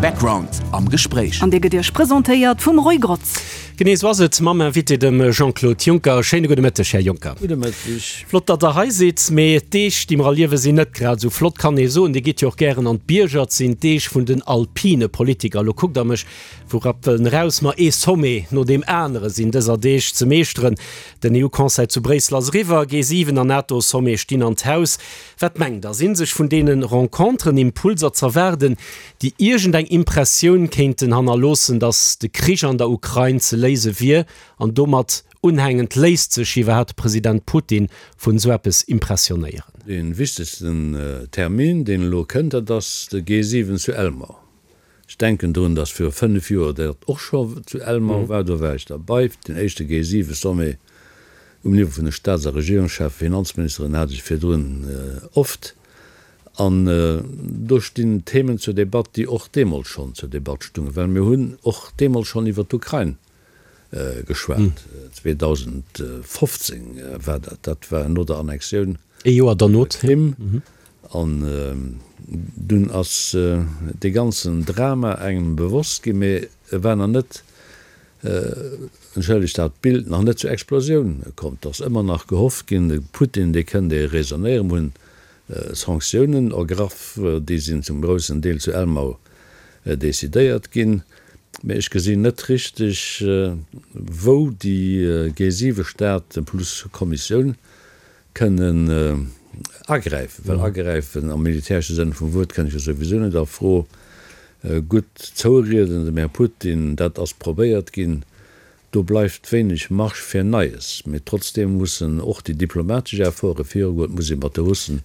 Background am Gespréich. An dee gëtt Iech presentéiert vum Roy Grotz. Genee esou ass et mam Invité, dem Jean-Claude Juncker. Schéine gudde Mëtteg, Här Juncker. Gudde Mëtteg. Flott, datt Der hei sidd. Mee d'Deeg, déi mer erliewen, sinn net grad esou flott, kann ee soen. Dir gitt jo och gären an d'Bierger. Et sinn d'Deeg vun den alpine Politiker. Elo kuckt Der mech vu Rappwëllen eraus. Ma ee Sommet no deem anere sinn dëser Deeg ze meeschteren. Den EU-Conseil zu Bréissel ass eriwwer, G7 an NATO-Sommet stinn an d'Haus. Wat mengt Der, sinn sech vun deene Renconteren Impulser z'erwaarden, déi iergend eng Impressioun kéinten hannerloossen, datt de Krich an der Ukrain ze léise wier? An domat unhängend, léisst sech iwwerhaapt de President Putin vun esou eppes impressionéieren? Dee wichtegsten Termin, deen elo kënnt, dat ass de G7 zu Elmau. Ech denken drun, datt viru 5 Joer dat och scho zu Elmau war, do war ech derbei, den éischte G7-Sommet um Niveau vun de Staats a Regierungscheffen, Finanzministeren hat ech virdrun oft. An do stinn Themen zur Debatt, déi och deemools schonn zur Debatt stungen, well mir hunn och deemools schonn iwwert d'Ukrain geschwat, 2015 war dat, dat war no der Annexioun Ee Joer der Krim. An dunn ass dee ganzen Drama engem bewosst ginn, mee e war nach net, entschëllegt dat Bild, nach net zur Explosioun komm. Et ass ëmmer nach gehofft ginn, de Putin, dee kënnt ee raisonnéieren. Mir hunn Sanktiounen ergraff, déi sinn zum groussen Deel zu Elmau decidéiert ginn. Mee ech gesinn net richteg, wou déi G7-Staaten plus Kommissioun kënnen agräifen, well agräifen am militäresche Sënn vum Wuert kënnt jo souwisou net a Fro. Gutt zourieden dem Här Putin, dat ass probéiert ginn, do bleift wéineg Marge fir Neies. Mee trotzdeem mussen och déi diplomatesch Efforte virugoen, et muss ee mat de Russen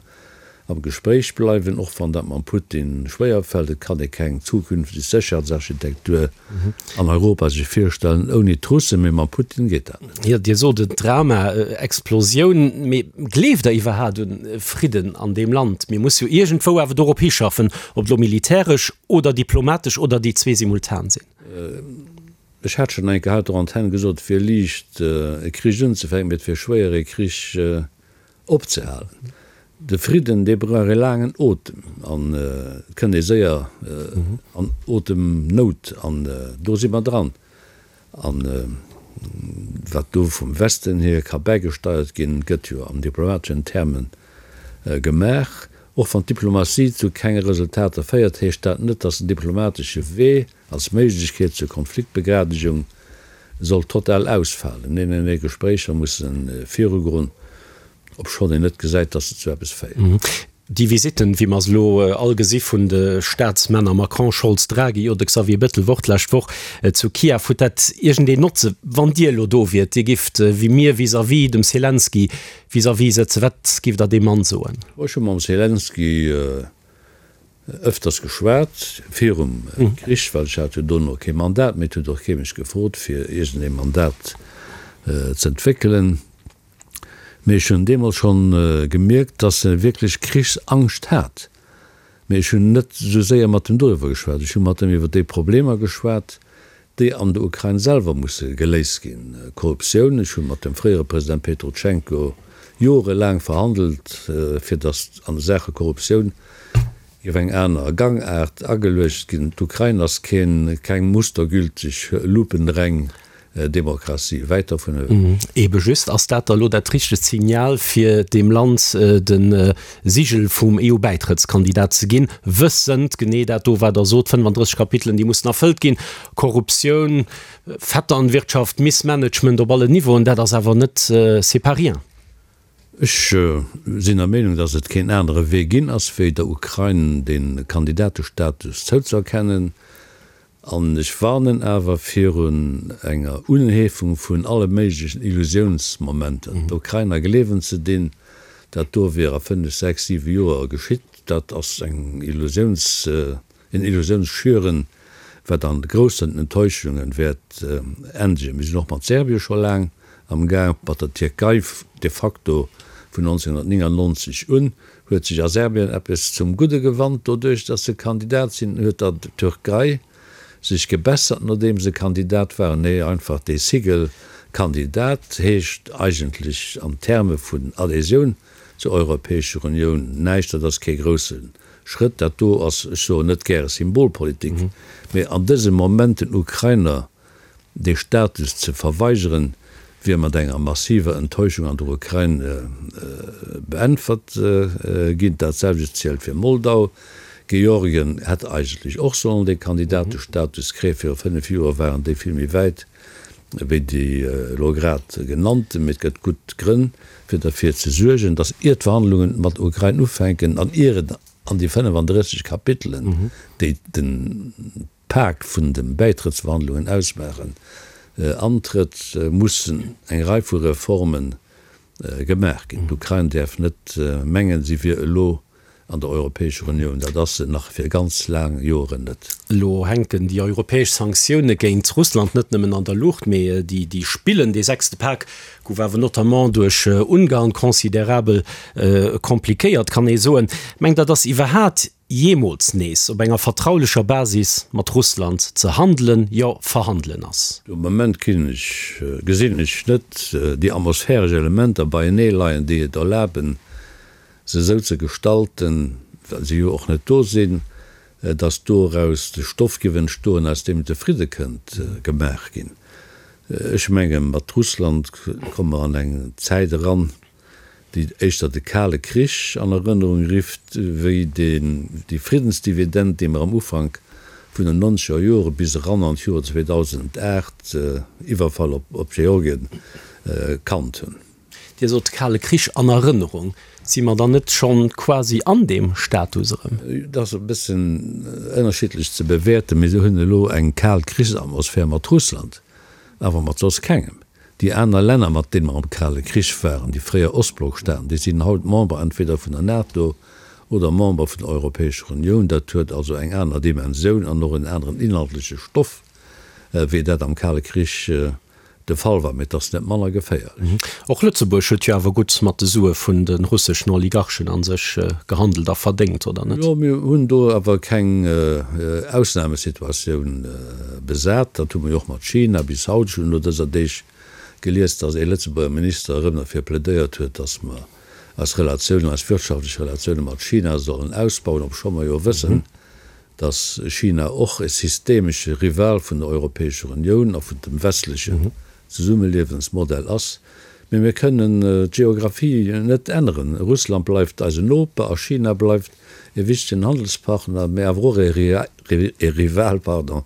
am Gespréich bleiwen, och wann dat mam Putin schwéier fält. Et kann ee keng zukünfteg Sécherheetsarchitektur an Europa sech virstellen ouni d'Russen, mee mam Putin geet dat net. Jo, Dir sot et, Drama, Explosioun. Mee gleeft Der iwwerhaat un Fridden an deem Land? Mir musse jo iergendwou awer dorop hischaffen, ob elo militäresch oder diplomatesch oder déi zwee simultan sinn. Ech hat schonn eng Kéier haut der Antenn gesot, et wier liicht e Krich unzefänken, mee et wier schwéier e Krich opzehalen. De Fridden, dee brauch e laangen Otem an et kënnt ee séier an Otemnout an do si mer dran. An wat do vum Westen hier ka bäigesteiert ginn, gëtt jo an diplomateschen Terme gemaach. Och wann d'Diplomatie zu kenge Resultater féiert, heescht dat net, datt den diplomatesche Wee als Méiglechkeet zur Konfliktbegradegung soll total ausfalen. Nee, nee, nee, Gespréicher musse virugoen, obschonn een net gesäit, datt se zu eppes féieren. Déi Visitten, wéi mer se elo all gesi vun de Staatsmänner Macron, Scholz, Draghi oder Xavier Bettel Wort d'lescht Woch zu Kiew, huet dat iergendeen Notze? Wann Dir elo do wiert, Dir gifft wéi mir vis-à-vis dem Selenskyj vis-à-vis sëtzen, wat gifft Der deem Mann soen? Ech hu mam Selenskyj Ëfters geschwat, virum Krich, well ech hat jo dono kee Mandat méi, et huet och kee mech gefrot fir iergendee Mandat z'entwéckelen. Mee ech hunn deemools schonn gemierkt, datt e wierklech Krichsangscht hat. Mee ech hunn net esou séier mat em doriwwer geschwat. Ech hu mat em iwwer déi Problemer geschwat, déi an der Ukrain selwer musse geléist ginn, Korruptioun, ech hu mat dem fréiere President Petrotschenko jorelaang verhandelt, fir datt an Saache Korruptioun géif eng aner Gangaart ageluecht ginn. D'Ukrain ass keen, keng mustergülteg, lupenreng Demokratie, wäit dervun ewech. Ebe just, ass dat da lo dat richtegt Signal, fir deem Land de Sigel vum EU-Bäitrëttskandidat ze ginn, wëssend, genee dat do wat Der sot, 35 Kapitelen, déi mussen erfëllt ginn, Korruptioun, Vetternwirtschaft, Missmanagement op allen Niveauen, dat ass awer net, c'est pas rien. Ech sinn der Meenung, datt et keen anere Wee ginn ass, wéi der Ukrain de Kandidatestatus zouzeerkennen. An ech warnen awer virun enger Unheefung vun alle méiglechen Illusiounsmomenter. D'Ukrainer gleewen ze dinn, dat do wier a fënnef, sechs, siwe Joer geschitt, dat ass eng Illusiouns, en Illusiounsschüren, wat an groussen Enttäuschunge wäert endegen. Mir sinn och mat Serbien scho laang am Gaang, mat der Tierkei de facto vun 1999 un. Huet sech a Serbien eppes zum Gudde gewannt doduerch, datt se Kandidat sinn? Huet der Türkei sech gebessert nodeem se Kandidat waren? Nee, einfach dee Sigel Kandidat heescht eigentlech an Terme vun Adhésioun zur Europäescher Unioun näischt. Dat ass kee grousse. Schrëtt. Dat do ass, ech soen net gäre Symbolpolitik, mee an dësem Moment den Ukrainer dee Status ze verweigeren, wier mat enger massiver Enttäuschung an der Ukrain beäntwert ginn. Dat selwecht zielt fir Moldau. Georgien hätt eigentlech och sollen dee Kandidatestatus kréien. Viru 5 Joer waren déi vill méi wäit wéi déi elo grad genannten. Mee et gëtt gutt Grënn, fir derfir ze suergen, datt ier d'Verhandlungen mat der Ukrain ufänken an ier et an déi 35 Kapitelen, déi de Pak vun de Bäitrëttsverhandlungen ausmaachen, antrëtt, mussen eng Rei vu Reforme gemaach ginn. D'Ukrain däerf net mengen, si wier elo an der Europäescher Unioun. Dat ass se nach fir ganz laang Joren net. Elo hänken déi europäesch Sanktioune géint Russland net nëmmen an der Luucht, mee déi spillen. Dee sechste Pak gouf awer notamment duerch Ungarn considerabel komplikéiert, kann ee soen. Mengt Der, datt iwwerhat jeemools nees op enger vertraulecher Basis mat Russland ze handelen, jo verhandelen ass? De Moment ginn ech, gesinn ech net déi atmosphäresch Elementer beienee leien, déi et erlaben, se esou ze gestalten, well se jo och net do sinn, datt doraus de Stoff géif entstoen, aus deem de Fridde kënnt gemaach ginn. Ech menge mat Russland komme mer an eng Zäit eran, déi éischter de Kale Krich an Erënnerung rifft, wéi déi Friddensdividend, déi mer am Ufank vun den nonzeger Jore bis eran an d'Joer 2008, Iwwerfall op Georgien, kannt hunn. Dir sot Kale Krich an Erënnerung. Si mer dann net schonn quasi an deem Status erëm? Dat ass e bëssen ënnerschiddlech ze bewäerten. Mir hunn elo eng kal Krichsatmosphär mat Russland, awer mat soss kengem. Déi aner Länner, mat deene mer am Kale Krich waren, déi fréier Ostblockstaaten, déi sinn haut Member entweder vun der NATO oder Member vun der Europäescher Unioun. Dat huet also eng aner Dimensioun an och en aneren inhaltleche Stoff, wéi dat am Kale Krich de Fall war, mee et ass net manner geféierlech. Och Lëtzebuerg huet jo awer gutt mat de Sue vun de russeschen Oligarchen a sech gehandelt a verdéngt, oder net? Jo, mir hunn do awer keng Ausnamesituatioun besat. Dat hu mer jo och mat China bis haut. Ech hunn elo dëser Deeg gelies, datt ee Lëtzebuerger Minister erëm derfir plädéiert huet, datt mer eis Relatiounen, eis wirtschaftlech Relatioune mat China sollen ausbauen, obscho mer jo wëssen, datt China och e systemesche Rival vun der Europäescher Unioun a vun dem westlechen Zesummeliewensmodell ass. Mee mir kënnen d'Geographie net änneren. Russland bleift eisen Noper a China bleift e wichtegen Handelspartner, mee awer och e Rival, pardon,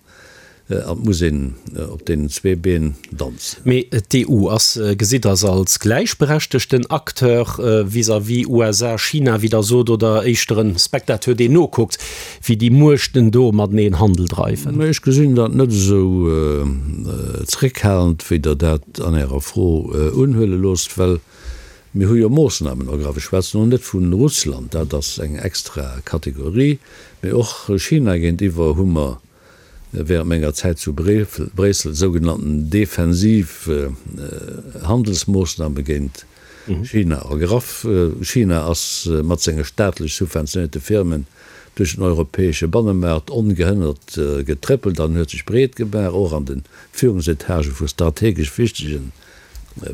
An et muss een op deenen zwee Been danzen. Mee d'EU ass, gesitt Der se als gläichberechtegten Acteur vis-à-vis USA, China, wéi Der sot, oder éischter en Spectateur, deen nokuckt, wéi déi Muechten do mateneen Handel dreiwen? Ech gesinn dat net esou zréckhalend, wéi Der dat an Ärer Fro unhuele loosst, well mir hu jo Moossnamen ergraff. Ech schwätzen elo net vu Russland, dat ass eng extra Kategorie, mee och China géintiwwer hu mer während menger Zäit zu Bréissel sougenannten defensiv Handelsmoossname géint China ergraff. China ass mat senge staatlech subventionéierte Firmen duerch den europäesche Bannemaart ongehënnert getréppelt an huet sech breet gemaach, och an de Führungsetage vu strategesch wichtege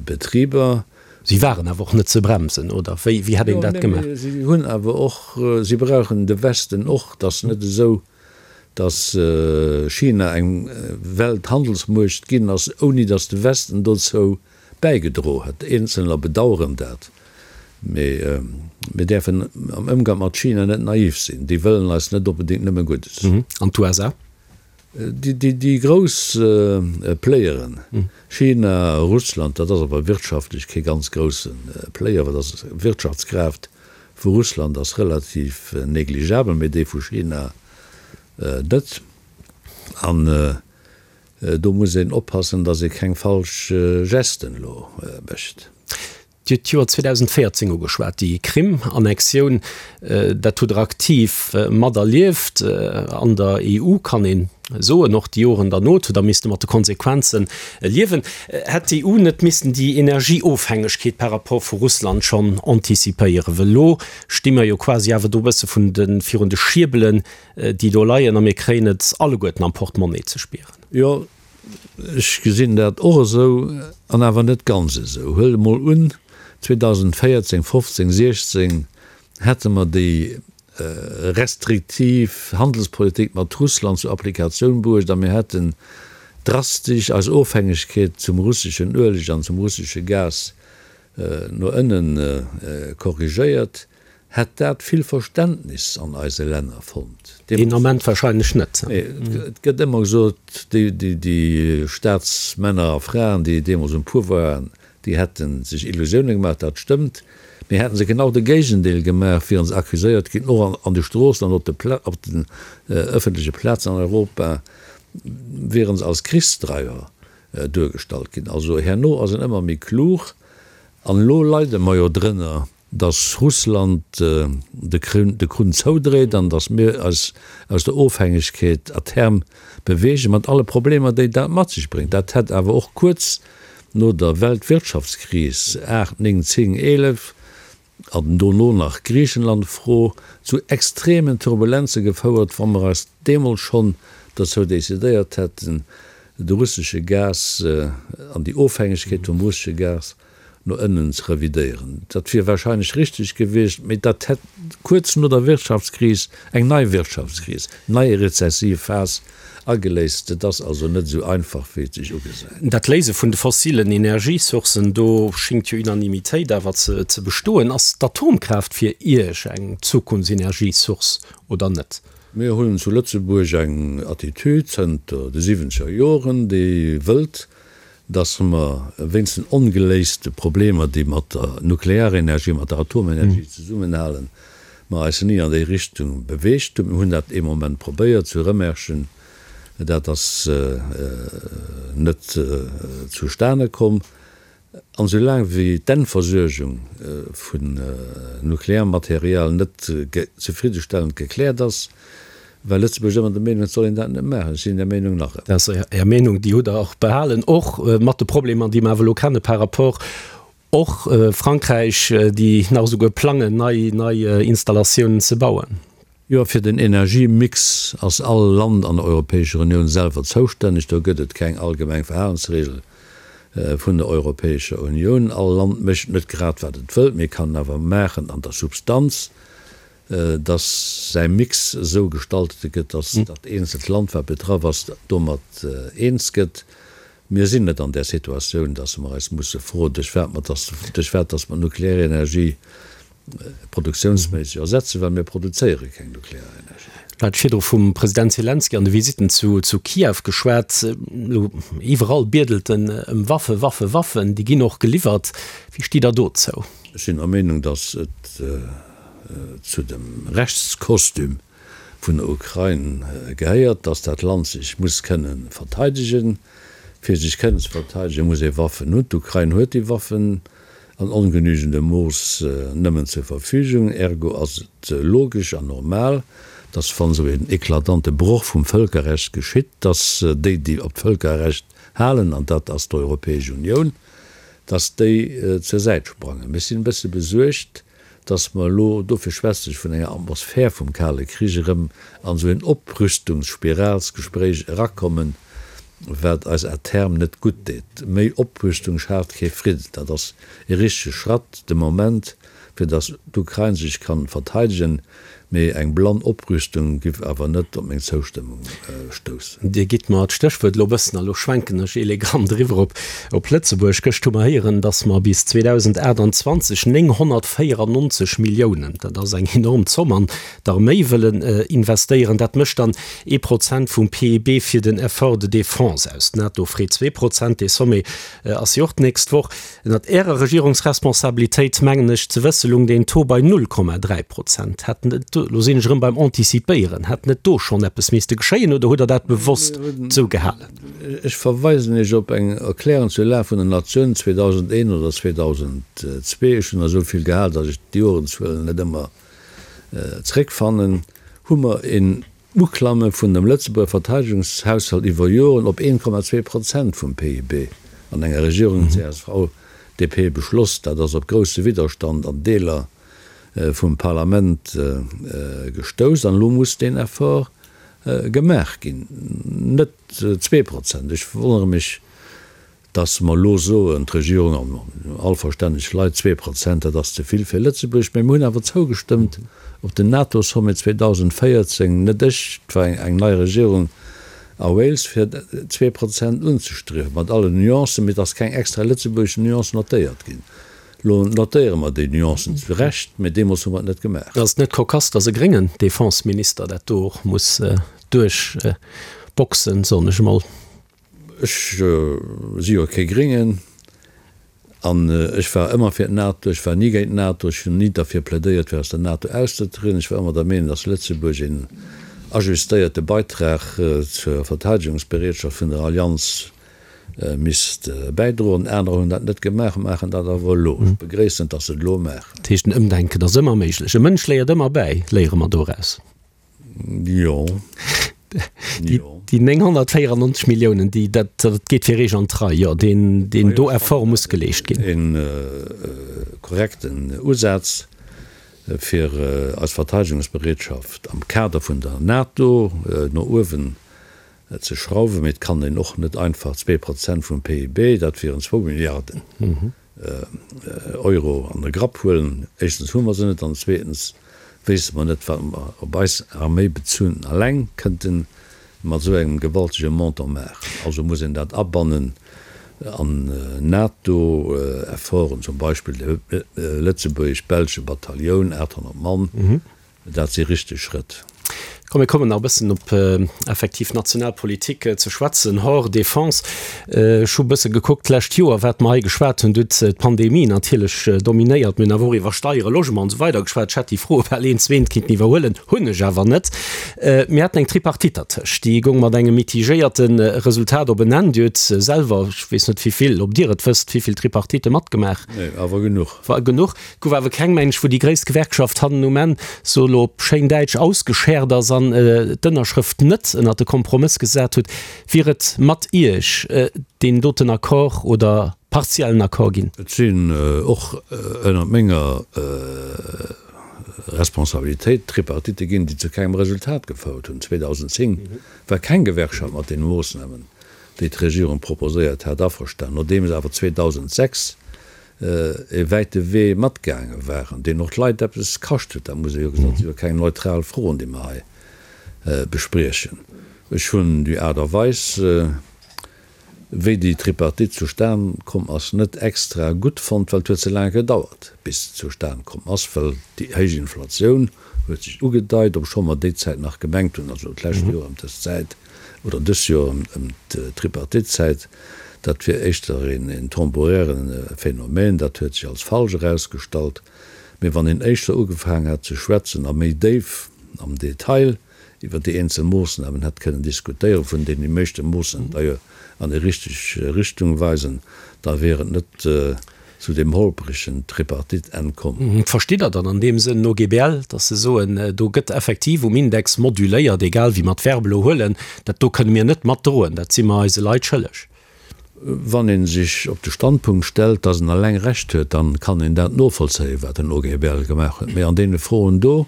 Betriber. Si waren awer och net ze bremsen, oder wéi hätt een dat gemaach? Jo, mee si hunn awer och, si brauchen de Westen och. Et ass net esou, datt China eng Welthandelsmuecht ginn ass, ouni datt de Westen dozou bäigedro hätt. Eenzelner bedaueren dat, mee mir däerfen am Ëmgang mat China net naiv sinn. Déi wëllen eis net onbedéngt nëmme Guddes. An d'USA? Déi grouss Playeren, China, Russland, dat ass awer wirtschaftlech kee ganz grousse Player, well dat ass Wirtschaftskraaft vu Russland ass relativ negligeabel, mee déi vu China net. An do muss een oppassen, datt ee keng falsch Gesten elo mécht. Dir hutt d'Joer 2014 ugeschwat, déi Krim-Annexioun, dat hutt Der aktiv materlieft an der EU, kann een soen, och déi Joren derno hutt Der misste mat de Konsequenze liewen. Hätt d'EU net missen déi Energieofhängegkeet par rapport vu Russland schonn anticipéieren? Well elo sti mer jo quasi awer do e bësse vun de virun de Schierbelen, déi do leien, a mir kréien et alleguerten am Portemonnaie ze spieren. Jo, Ech gesinn dat och esou, an awer net ganz esou. Huelt emol un, 2014, 15, 16 hätte mer déi. restriktiv Handelspolitik mat Russland zur Applikatioun bruecht a mir hätten drastesch eis Ofhängegkeet zum russeschen Ueleg an zum russesche Gas no ënnen korrigéiert, hätt dat vill Verständnis an eise Länner fonnt. Deen Ament wahrscheinlech net. Nee, et gëtt ëmmer gesot, déi Staatsmänner a Fraen, déi deemools um Pouvoir waren, déi hätte sech Illusioune gemaach. Dat stëmmt. Mee hätte se genau de Géigendeel gemaach, wiere se accuséiert ginn, och an de Stroossen an op den ëffentleche Plazen an Europa, wiere se als Krichsdreiwer duergestallt ginn. Also herno ass een ëmmer méi klug. An elo leide mer jo drënner, datt Russland de Krunn zoudréit an datt mir eis aus der Ofhängegkeet à terme beweegen, mat alle Problemer, déi dat mat sech bréngt. Dat hätt awer och kuerz no der Weltwirtschaftskris 8, 9, 10, 11 an dono nach Griichenland-Fro zu extremen Turbulenze gefouert, wa mer eis deemools schonn dozou decidéiert hätten, de russesche Gas an déi Ofhängegkeet vum russesche Gas no ënnen ze revidéieren. Dat wier wahrscheinlech richteg gewiescht, mee dat hätt kuerz no der Wirtschaftskris eng nei Wirtschaftskris, nei rezessiv Phas ageléist. Et ass also net esou einfach, wéi et sech ugesäit. Dat Léise vun de fossilen Energiesourcen, do schéngt jo Unanimitéit awer ze bestoen. Ass d'Atomkraaft fir Iech eng Zukunftsenergiesource oder net? Mir hunn zu Lëtzebuerg eng Attitüd zënter de siwwenzeger Joren, déi wëllt, dass mer wéinst den ongeléiste Problemer, déi mat der Nuklearenergie, mat der Atomenergie zesummenhalen, mer eis ni an déi Richtung beweegt hunn. Mir hunn dat ee Moment probéiert zu Rëmerschen, dat ass net zustane komm. An esoulaang wéi d'Endversuergung vun Nuklearmaterial net zefriddestellend gekläert ass, war Lëtzebuerg ëmmer der Meenung, et soll een dat net maachen. Ech sinn där Meenung nach ëmmer. Dat ass Är Meenung, déi hutt Der och behalen, och mat de Problemer, déi mer awer elo kenne par rapport och Frankräich, déi nach esouguer plangen, nei nei Installatiounen ze bauen. Jo, fir den Energiemix ass all Land an der Europäescher Unioun selwer zoustänneg. Do gëtt et keng allgemeng Verhalensregel vun der Europäescher Unioun. All Land mécht net grad wat et wëllt, mee kann awer maachen an der Substanz, datt säi Mix esou gestaltet gëtt, datt dat eenzelt Land, wat betraff ass, domat eens gëtt. Mir sinn net an där Situatioun, datt mer eis musse froen, duerch wat mer, duerch wat datt mer d'Nuklearenergie produktiounsméisseg ersetzen, well mir produzéiere keng Nuklearenergie. Mir hate virdru vum President Selenskyj an de Visitten zu Kiew geschwat. Elo iwwerall biedelt en ëm Waffen, Waffen, Waffen. Déi ginn och geliwwert. Wéi stitt Der dozou? Ech sinn der Meenung, datt et zu dem Rechtskostüm vun der Ukrain gehéiert, datt dat Land sech muss kënne verteidegen. Fir sech kënnen ze verteidegen, muss ee Waffen hunn. D'Ukrain huet déi Waffen. an ongenügendem Mooss nëmmen zur Verfügung. Ergo ass et logesch an normal, dass wann esou een eklatante Broch vum Vëlkerrecht geschitt, dass déi, déi op d'Vëlkerrecht halen, an dat ass d'Europäesch Unioun, dass déi zur Säit sprangen. Ech sinn e bësse besuergt, dass mer elo, dofir schwätze ech vun enger Atmosphär vum Kale Krich, erëm an esou een Oprüstungsspiralsgespréich erakommen, wat eis à terme net gutt deet. Méi Oprüstung schaaft kee Fridden. Dat ass ee richtege Schratt de Moment, fir dass d'Ukrain sech kann verteidegen, mee eng blann Oprüstung giff awer net op meng Zoustëmmung stoussen. Dir gitt mer d'Stéchwuert elo e bëssen, a lo schwenken ech elegant eriwwer op op Lëtzebuerg. Gëscht hu mer héieren, dass mer bis 2028 994 Milliounen, dat ass eng enorm Zomm, an d'Arméi wëllen investéieren. Dat mécht dann ee Prozent vum PIB fir den Effort de défense aus. D'NATO freet 2%, dee Sommet ass jo och d'nächst Woch. Ënnert Ärer Regierungsresponsabilitéit, mengen ech ze wësse, lung deen Taux bei 0,3 Prozent. Hätt net do, lo sinn ech erëm beim Anticipéieren, hätt net do schonn eppes misste geschéien oder hutt Der dat bewosst esou gehalen? Ech verweisen Iech op eng Erklärung zur Lag vun der Natioun 2001 oder 2002, ech hunn der esou vill gehal, datt ech d'Jorenzuelen net ëmmer zréckfannen, hu mer een Uklamme vun dem Lëtzebuerger Verteidegungshaushalt iwwer Joren op 1,2 Prozent vum PIB an enger Regierung CSV-DP beschloss. Dat ass op grousse Widderstand an Deeler vum Parlament gestouss an elo muss deen Effort gemaach ginn. Net 2%. Ech wonnere mech. Dass mer elo soen, d'Regierung an all verstänneg Leit, 2%, dat ass ze vill fir Lëtzebuerg. Mä mir hunn awer zougestëmmt op den NATO-Sommet 2014, net ech, et war eng nei Regierung a Wales, fir 2% unzestriewen, mat allen Nuancen, mee et ass keng extra lëtzebuergesch Nuance notéiert ginn. Elo notéiere mer déi Nuancen zu Recht, mee deemools hu mer et net gemaach. Ass et net kokass, dass e gréngen Defenseminister dat do och muss duerchboxen, soen ech emol? Ech si jo kee Gréngen an ech war ëmmer fir d'NATO. Ech war ni géint d'NATO. Ech hunn ni derfir plädéiert, fir aus der NATO auszetrieden. Ech war ëmmer der Meenung, datt Lëtzebuerg een ajustéierte Beitrag zur Verteidegungsbereetschaft vun der Allianz misst bäidroen. Anerer hunn dat net gemaach, maachen dat awer elo. Ech begréissen et, datt se et elo maachen. Dat heescht, en Ëmdenken ass ëmmer méiglech. E Mënsch léiert ëmmer bäi, léiere mer doraus. Jo. Jo. Déi 994 Milliounen, déi, dat, dat geet fir Eech an d'Rei, jo, deen, deen do Effort muss geleescht ginn. Een korrekten Usaz, fir eis Verteidegungsbereetschaft am Kader vun der NATO no uewen ze schrauwen. Mee et kann een och net einfach 2% vum PIB, dat wieren zwou Milliarden, Euro an de Grapp huelen. Éischtens hu mer se net an zweetens wéisse mer net, wat mer op eis Arméi bezunn eleng kënnten mat esou engem gewaltege Montant maachen. Also muss een dat abannen an NATO-Efforten, zum Beispill de lëtzebuergesch-belsche Batailloun, 800 Mann, Dat si richteg Schrëtt. Komm, mir kommen nach e bëssen op effektiv national Politik ze schwätzen, hors Défense. Ech hu e bësse gekuckt d'lescht Joer, wat mer hei geschwat hunn. Do huet d'Pandemie natierlech dominéiert. Mir hunn awer och iwwer Steieren, Logement an esou weider geschwat. Ech hätt déi Froe bal eent zu eent kinnten iwwerhuelen, hunn ech awer net. Mir haten eng Tripartite dertëscht, déi goung mat engem mitigéierte Resultat op en Enn. Dir hutt selwer, ech weess net wéi vill, ob Dir et wësst, wéi vill Tripartitte matgemaach? Nee, awer genuch. War genuch. Et gouf awer keng Mensch, wou déi gréisst Gewerkschaft hannen um Enn, so elo op schéin Däitsch, ausgeschäert ass an d'Ënnerschrëft net ënnert de Kompromëss gesat huet. Wier et mat Iech deen doten Accord oder partiellen Accord ginn? Et sinn och ënnert menger Responsabilitéit Tripartitte ginn, déi zu kengem Resultat gefouert hunn. 2010 war keng Gewerkschaft mat deene Moossnamen, déi d'Regierung proposéiert hat, averstanen. Nodeems awer 2006 e wäite Wee matgaange waren, deen och d'Leit eppes kascht huet, dat muss ee jo gesot, dat si jo keng neutral Froen, déi mer hei bespriechen. Ech hunn déi Aart a Weis, wéi déi Tripartite zustan komm ass, net extra gutt fonnt, well et huet ze laang gedauert, bis se zustan komm ass, well déi héich Inflatioun huet sech ugedeit, obscho mer déi Zäit nach gemengt hunn, also d'lescht Joer ëm dës Zäit, oder dës Joer ëm d'Tripartite-Zäit, dat wier éischter een temporäre Phänomen, dat huet sech als falsch erausgestallt. Mee wann een éischter ugefaangen hätt ze schwätzen a méi déif am Detail iwwer déi eenzel Moossnamen hätt kënnen diskutéieren, vun deenen déi meeschte Moossnamen d'ailleurs an déi richteg Richtung weisen, da wier et net zu deem holpregen Tripartite-Enn komm. Verstitt Der dann an deem Sënn den OGBL, datt se soen, do gëtt effektiv um Index moduléiert, egal wéi mer d'Verb elo huelen, dat do kënne mir net matdroen, dat si mer eise Leit schëlleg? Wann ee sech op de Standpunkt stellt, datt en eleng Recht huet, da kann een dat novollzéien, wat den OGBL gemaach huet. Mee an deene Froen do,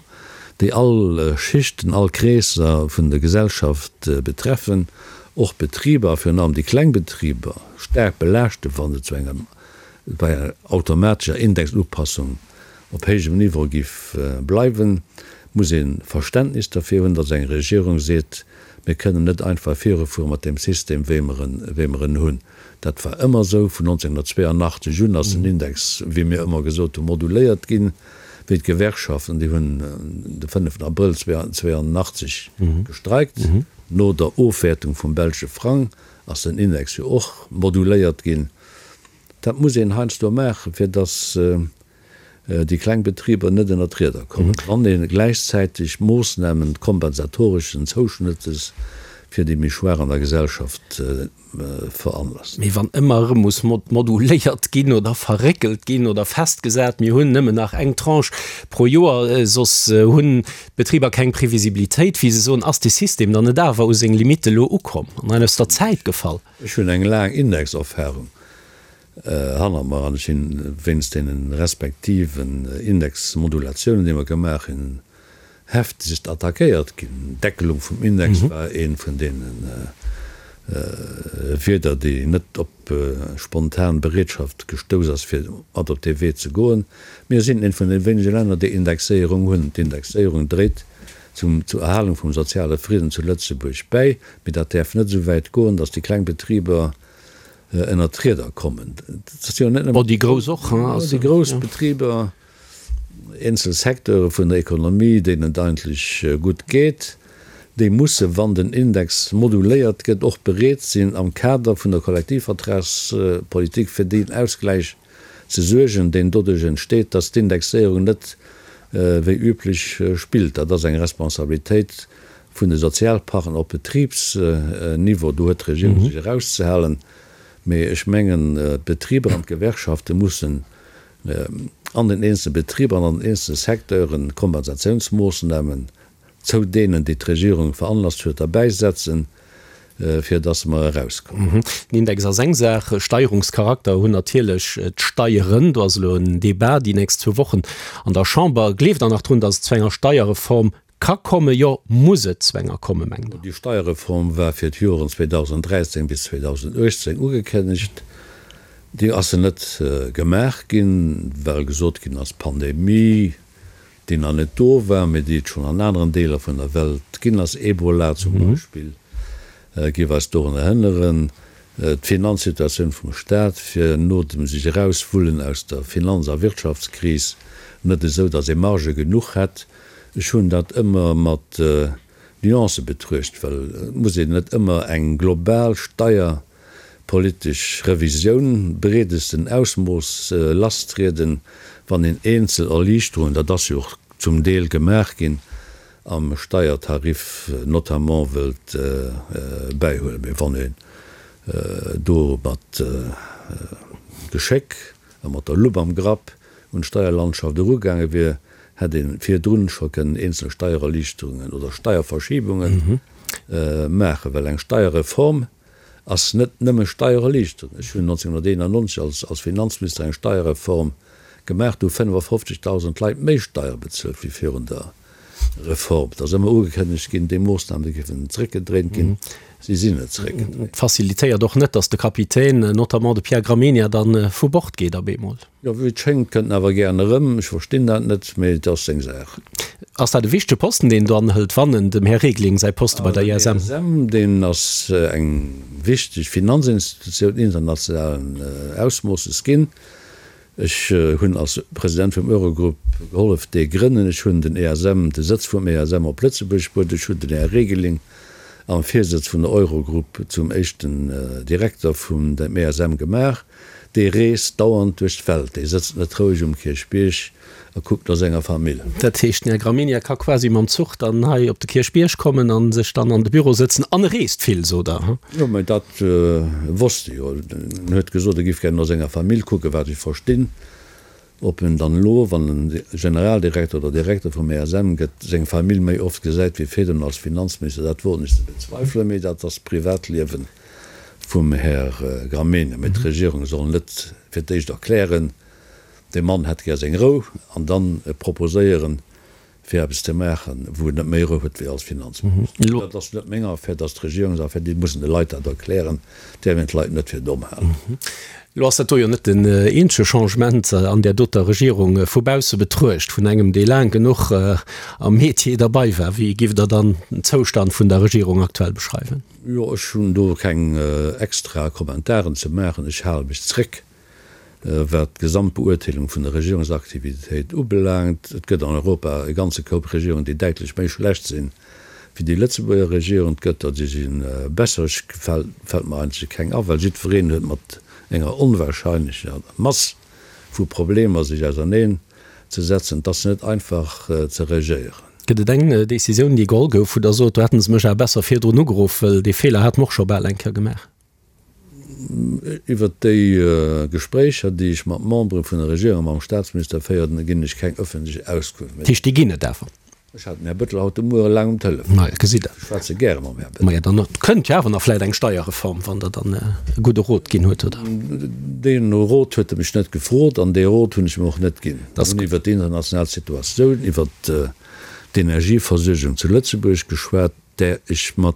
déi all Schichten, all Kreesser vun der Gesellschaft betreffen, och Betriber, a virun allem déi kleng Betriber, staark belaaschten, wa se zu enger bei enger automatescher Indexupassung op héijem Niveau giff bleiwen, muss ee Verständnis derfir hunn, datt eng Regierung seet, mir kënnen net einfach virufuere mat deem System, wéi mer en, wéi mer en hunn. Dat war ëmmer esou. Vun 1982 un ass den Index, wéi mir ëmmer gesot hunn, moduléiert ginn, wéi d'Gewerkschaften, déi hunn de 5 Abrëll 1982 gestreikt, no der Ofwäertung vum belsche Frang ass den Index jo och moduléiert ginn. Dat muss een heiansdo maachen, fir datt déi kleng Betriber net ënner d'Rieder kommen, wann ee gläichzäiteg Moossnamen kompensatoreschen Zouschnëttes fir déi méi Schwaach an der Gesellschaft veranlasst. Mee wann ëmmer erëm muss moduléiert ginn oder verréckelt ginn oder festgesat, mir hunn nëmmen nach eng Tranche pro Joer, soss hunn d'Betriber keng Previsibilitéit, wéi se soen, ass dee System dann net awer u seng Limitte elo ukomm an aus der Zäit gefall? Ech hunn eng laang Indexerfahrung hannert mer an ech sinn wéinst deene respektiven Indexmodulatiounen, déi mer gemaach hunn, heftegst attackéiert ginn. D'Deckelung vum Index war ee vun deene. Wieder, déi net op spontan Bereetschaft gestouss ass, fir mat op dee Wee ze goen. Mir sinn eent vun de wéinege Länner, déi Indexéierung hunn. D'Indexéierung dréit zum zur Erhalung vum soziale Fridden zu Lëtzebuerg bäi, mee dat däerf net esou wäit goen, datt déi kleng Betriber ënnert d'Rieder kommen. Dat ass jo net nëmmen. Déi grouss och, hein? Déi grouss Betriber. Eenzel Secteure vun der Ekonomie, deenen et eigentlech gutt geet, déi musse, wann den Index moduléiert gëtt, och bereet sinn, am Kader vun der Kollektivvertragspolitik fir deen Ausgläich ze suergen, deen doduerch entsteet, dass d'Indexéierung net wéi üblech spillt. Dat ass eng Responsabilitéit vun de Sozialpartner op Betribsniveau. Do huet d'Regierung sech erauszehalen. Mee ech mengen, d'Betriber an d'Gewerkschafte mussen an den eenzele Betriber an an den eenzele Secteuren Kompensatiounsmoossnamen zou deenen, déi d'Regierung veranlasst huet, derbäisetzen, fir dass mer erauskommen. Den Index ass eng Saach, Steierungscharakter hunn natierlech d'Steieren. Do ass elo en Débat déi nächst zwou Wochen an der Chamber. Gleeft Der nach drun, dass et zu enger Steierreform Ka kommen, jo, muss et zu enger komme, mengt Der? Déi Steierreform war fir d'Joren 2013 bis 2018 ugekënnegt. Déi ass net gemaach ginn, well gesot ginn ass, d'Pandemie, déi nach net do war, mee déi et schonn an aneren Deeler vun der Welt ginn ass, Ebola zum Beispill, géif eis dorun erënneren. D'Finanzsituatioun vum Staat wier no dem sech erauswullen aus der Finanz a Wirtschaftskris net esou, datt ee Marge genuch hätt. Ech hunn dat ëmmer mat Nuancë betruecht, well et muss een net ëmmer eng global steierpolitesch Revisioun breedesten Ausmooss lasstrieden, wann een eenzel Erliichterungen, dat ass jo och zum Deel gemaach ginn, am Steiertarif notamment wëllt bäihuelen. Mee wann een do mat Geschéck a mat der Lupp am Grapp un d'Steierlandschaft erugaange wier, hätt ee virdrun scho kënnen eenzel Steiererliichterungen oder Steierverschiebunge maachen, well eng Steierreform ass net nëmme Steiererliichterung. Ech hunn 1991 als Finanzminister eng Steierreform gemaach, do hu 55.000 Leit méi Steiere bezuelt wéi virun der Reform. Et ass ëmmer ugekënnegt ginn, déi Moossname géifen zréckgedréint ginn. Si sinn net zréckgedréint. Et facilitéiert och net, datt de Kapitän, notamment de Pierre Gramegna, dann vu Bord geet op eemol. Jo, wéi et schéngt, kënnt en awer gären erëm. Ech verstinn dat net, mee et ass seng Saach. Ass dat e wichtege Posten, deen en do anhëlt, wann en dem Här Regling säi Poste bei der ISM. Den ESM, deen ass eng wichteg Finanzinstitutioun internationalen Ausmoosses ginn. Ech hunn als President vum Eurogrupp gehollef, dee grënnen. Ech hunn den ESM, de Sëtz vum ESM op Lëtzebuerg bruet. Ech hunn den Här Regling am Virsëtz vun der Eurogrupp zum éischten Direkter vum dem ESM gemaach. Dee reest dauernd duerch d'Welt, dee sëtzt net roueg um Kierchbierg a kuckt no senger Famill. Dat heescht, den Här Gramegna ka quasi mam Zuch dann hei op de Kierchbierg kommen a sech dann an de Büro sëtzen. An e reest vill, sot Der, he? Jo, mä dat wosst e jo. En huet gesot, e giff gär no senger Famill kucken, wat ech verstinn. Ob en dann elo, wann en Generaldirekter oder Direkter vum ESM gëtt, seng Famill méi oft gesäit wéi virdrun als Finanzminister, dat woen ech ze bezweifelen, mee dat ass d'Privatliewe vum Här Gramegna. Mee d'Regierung soll net fir d'éischt erklären, dee Mann hätt gär seng Rou, an dann proposéieren, fir eppes ze maachen, wou en net méi Rou huet wéi als Finanzminister. Dat ass net meng Affär, dat ass d'Regierungsaffär, déi mussen de Leit dat erklären, däerf een d'Leit net fir domm halen. Elo ass dat do jo net den eenzege Changement an där doter Regierung. Vu bausse betruecht, vun engem, dee laang genuch am Metier derbei war, wéi giff Der dann den Zoustand vun der Regierung aktuell beschreiwen? Jo, ech hunn do keng extra Kommentaren ze maachen. Ech hale mech zréck. Wat d'Gesamtbeurteelung vun der Regierungsaktivitéit ubelaangt, et gëtt an Europa e ganze Koup Regierungen, déi däitlech méi schlecht sinn wéi déi Lëtzebuerger Regierung. Et gëtt der, déi si besser. Ech fält mer eigentlech keng a, well jiddwereen huet mat enger onwahrscheinlecher Mass vu Problemer sech auserneen ze setzen. Et ass net einfach ze regéieren. Gëtt et eng Décisioun, déi geholl gouf, wou Der sot, do hätte se mech awer besser virdrun ugeruff, well dee Feeler hate mer och scho bal eng Kéier gemaach? Iwwert déi Gespréicher, déi ech mat Membere vun der Regierung a mam Staatsminister féieren, ginn ech keng ëffentlech Auskunft. Dat heescht, déi ginn et awer? Ech hat den Här Bettel haut de Muere laang um Telefon. Maja, gesitt Der. Ech schwätze gäre mam Här Bettel. Maja, dann kënnt jo awer nach vläicht eng Steierreform, wann Der dann e gudde Rot ginn huet, oder? Dee Rot huet e mech net gefrot an dee Rot hunn ech em och net ginn. Mir hunn iwwert déi international Situatioun, iwwert d'Energieversuergung zu Lëtzebuerg geschwat. där ech mat.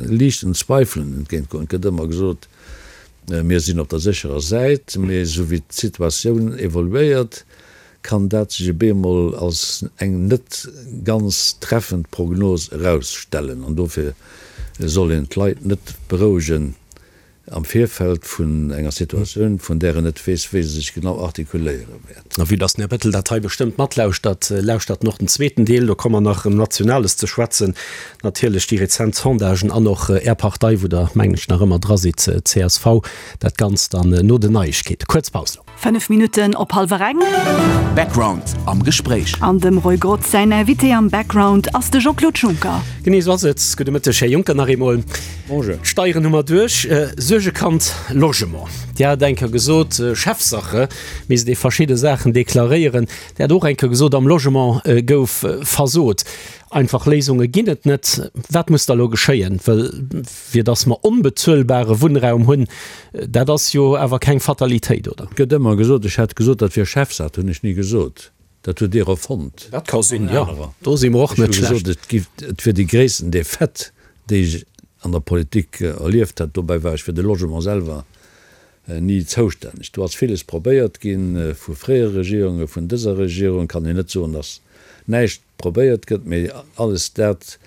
liichten Zweifelen entgéintgoen. Et gëtt ëmmer gesot, mir sinn op der sécherer Säit, mee esou wéi d'Situatioun evoluéiert, kann dat sech e beemol als eng net ganz treffend Prognos erausstellen. An dofir soll een d'Leit net berouegen am Virfeld vun enger Situatioun, vun där en net weess, wéi se sech genau artikuléiere wäert. A vue dass den Här Bettel dat hei bestëmmt matlauschtert, lauschtert en och den zweeten Deel. Do komme mer nach ëm Nationales ze schwätzen, natierlech déi rezent Sondagen an och Är Partei, wou Der, mengen ech, nach ëmmer dra sidd, csv. Dat Ganzt dann no den Neiegkeeten. Kuerz Paus elo. 5 Minutten op hallwer eng. Background am Gespréich. An dem Roy Grotz säin Invité am Background ass de Jean-Claude Juncker. Genee esou ass et. Gudde Mëtteg, Här Juncker, nach eemol. Bonjour. D'Steieren hu mer duerch. Suergekand Logement. Dir hat eng Kéier gesot, Chefsache, misst ee verschidde Saachen deklaréieren. Dir hat och eng Kéier gesot, am Logement gouf versot. Einfach Léisunge ginn et net. Wat muss da elo geschéien? Well fir datt mer onbezuelbare Wunnraum hunn, dat ass jo awer keng Fatalitéit, oder? Et gëtt ëmmer gesot, ech hätt gesot, dat wier Chefsaach. Dat hunn ech ni gesot. Dat hutt Dir erfonnt. Dat ka sinn, jo. Do si mer och net schlecht. Ech hu gesot, et giff, et wier déi gréissten Defaite, déi ech an der Politik erlieft hätt. Dobäi war ech fir de Logement selwer ni zoustänneg. Do ass villes probéiert ginn, vu fréiere Regierungen, vun dëser Regierung. Kann een net soen, datt näischt probéiert gëtt, mee alles dat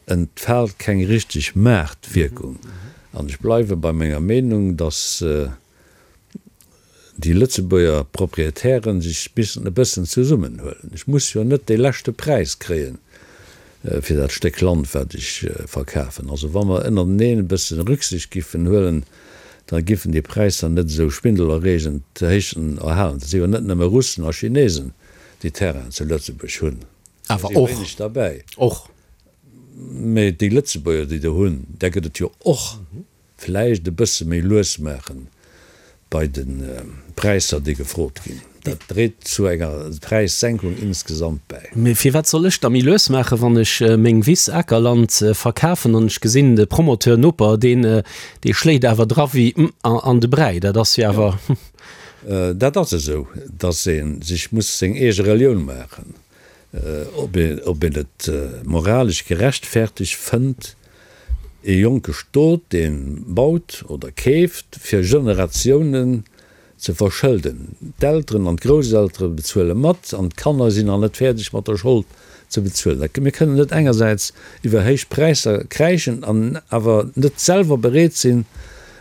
entfaalt keng richteg Maartwierkung. An ech bleiwe bei menger Meenung, datt déi Lëtzebuerger Proprietären sech missen e bëssen zesummenhuelen. Ech muss jo net dee leschte Präis kréien fir dat Stéck Land, wat ech verkafen. Also wa mer ënnerteneen e bësse Rücksicht giffen huelen, da giffen déi Präisser net esou schwindelerreegend héich erhalen. Et si jo net nëmme Russen a Chinesen, déi Terrainen zu Lëtzebuerg hunn. Awer och. Wéineg derbäi. Och. Mee déi Lëtzebuerger, déi do hunn, där gëtt et jo och. Vläicht e bësse méi lues maache bei de Präisser, déi gefrot ginn. Dat dréit zu enger Präissenkung insgesamt bäi. Mee firwat soll ech da méi lues maachen, wann ech meng Wiss, Akerland, verkafen an ech gesinn, de Promoteur, Noper, deen, dee schléit awer dra wéi an de Bräi. Dat ass jo awer. Dat ass esou, datt ee sech muss seng eege Relioun maachen, ob een et moralesch gerechtfertegt fënnt, ee jonke Stot, dee baut oder keeft, fir Generatiounen ze verschëlden. D'Elteren an d'Grousseltere bezuele mat an d'Kanner sinn nach net fäerdeg mat der Schold ze bezuelen. Mir kënnen net engersäits iwwer héich Präisser kräischen an awer net selwer bereet sinn,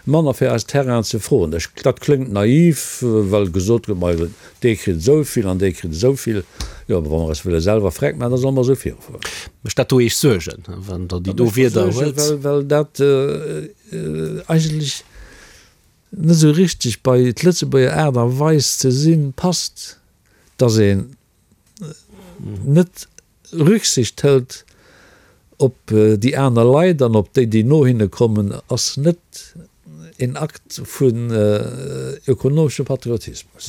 manner fir eis Terrainen ze froen. Dat kléngt naiv, well gesot gëtt, ma dee kritt esou vill an dee kritt esou vill. Jo, awer wa mer eis wëlle selwer freck maachen, da solle mer esou virufueren. Mécht dat do Iech Suergen, wann Der déi do Wierder huelt? Well, well dat eigentlech net esou richteg bei d'Lëtzebuerger Aart a Weis ze sinn passt, dass een net Rücksicht hëlt op déi aner Leit an op déi, déi no hinne kommen, ass net een Akt vun ökonomeschem Patriotismus.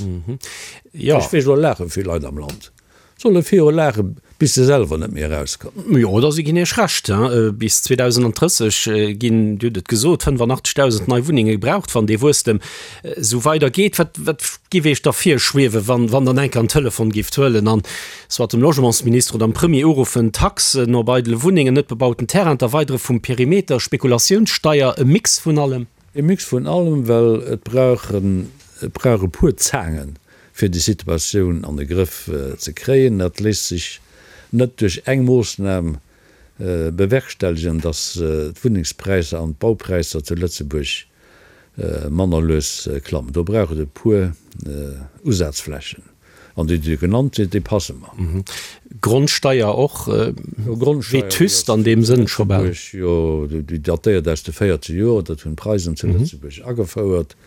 Ech weess, elo laache vill Leit am Land. Solle viru laachen, bis se selwer net méi erauskommen. Jo, da si ginn Iech Recht. Bis 2030 ginn, Dir hutt et gesot, 85.000 nei Wunnenge gebraucht, wann dee Wuesstem esou weider geet. Wat, wat giff Iech da virschwiewen, wann, wann Der enk an Telefon gifft huelen an soit dem Logementsminister oder dem Premier uruffen, Taxen op eidele Wunnengen, net bebauten Terrain, d'Erweidere vum Perimeter, Spekulatiounssteier, e Mix vun allem? E Mix vun allem, well et brauch et brauch e puer Zaangen, fir déi Situatioun an de Grëff ze kréien. Dat léisst sech net duerch eng Moossnam bewerkstelligen, datt d'Wunnengspräisser an d'Baupräisser zu Lëtzebuerg manner lues klammen. Do brauch et e puer Usazflächen. An déi, déi genannt sinn, déi passe mer. Grondsteier och vétuste an deem Sënn scho bal. Jo, déi datéiert aus de 40 Joer, dat hunn d'Preisen zu Lëtzebuerg agefouert.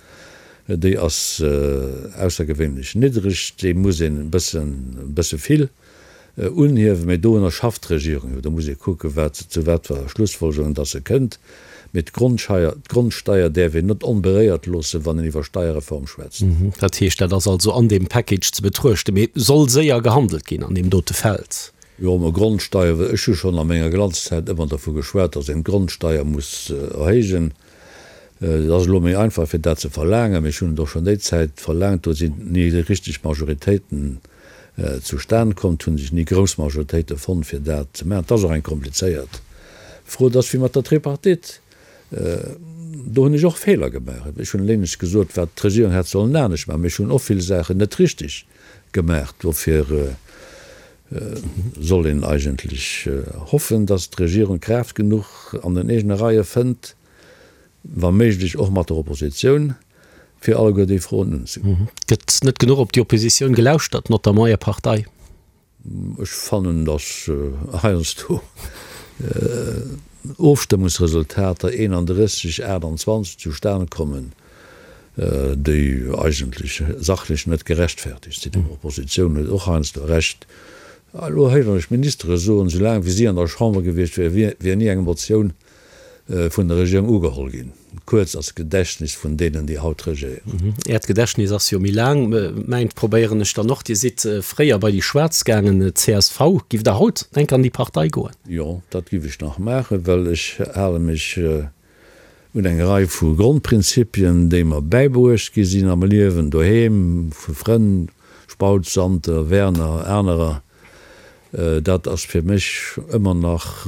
Déi ass aussergewéinlech niddreg, déi muss een e bëssen, e bësse vill unhiewen, mee dorunner schafft d'Regierung jo. Do muss ee kucken, wat, zu wat fir Schlussfolgerungen dass se kënnt. Mee d'Grondscheier, d'Grondsteier däerf een net onberéiert loossen, wann een iwwer Steierreform schwätzt. Dat heescht, dat ass also an deem Package ze betruechten, mee soll séier gehandelt ginn an deem dote Feld. Jo, mä Grondsteier, ech hu schonn a menger Glanzzäit ëmmer dervu geschwat, dass een d'Grondsteier muss erhéijen. Et ass elo méi einfach, fir dat ze verlaangen, mee ech hunn et och schonn déi Zäit verlaangt. Do sinn ni richteg Majoritéiten zustan komm, et hu sech ni grouss Majoritéite fonnt, fir dat ze maachen. Et ass och eng komplizéiert. D'Fro, et ass wéi mat der Tripartite, do hunn ech och Feeler gemaach. Ech hunn eléineg gesot, wat d'Regierung hätt sollen anescht maachen, mee ech hunn och vill Saachen net richteg gemaach. Dofir soll een eigentlech hoffen, datt d'Regierung Kraaft genuch an den eegene Reie fënnt, wa méiglech och mat der Oppositioun, fir alleguer déi Froen unzegoen. Gëtt net genuch op déi Oppositioun gelauschtert, notamment Är Partei? Ech fannen, datt heiansdo Ofstëmmungsresultater 31, 28 zustan kommen, déi eigentlech sachlech net gerechtfertigt sinn. D'Oppositioun huet och heiansdo Recht. Elo héieren ech Ministere soen, soulaang wéi si an der Chamber gewiescht wier, wier ni eng Motioun vun der Regierung ugeholl ginn. Kuerz ass d'Gedächtnis vun deenen, déi haut regéieren. Äert Gedächtnis ass jo méi laang. Mäint probéieren ech dann och. Dir sidd fréier bei déi Schwaarz gaangen, csv. Giff Der haut enk an déi Partei goen? Jo, dat giff ech nach maachen, well ech hale mech un eng Rei vu Grondprinzipien, déi mer bäibruecht gi sinn am Liewen, doheem, vu Frënn, Spautz, Santer, Werner, anerer. Dat ass fir mech ëmmer nach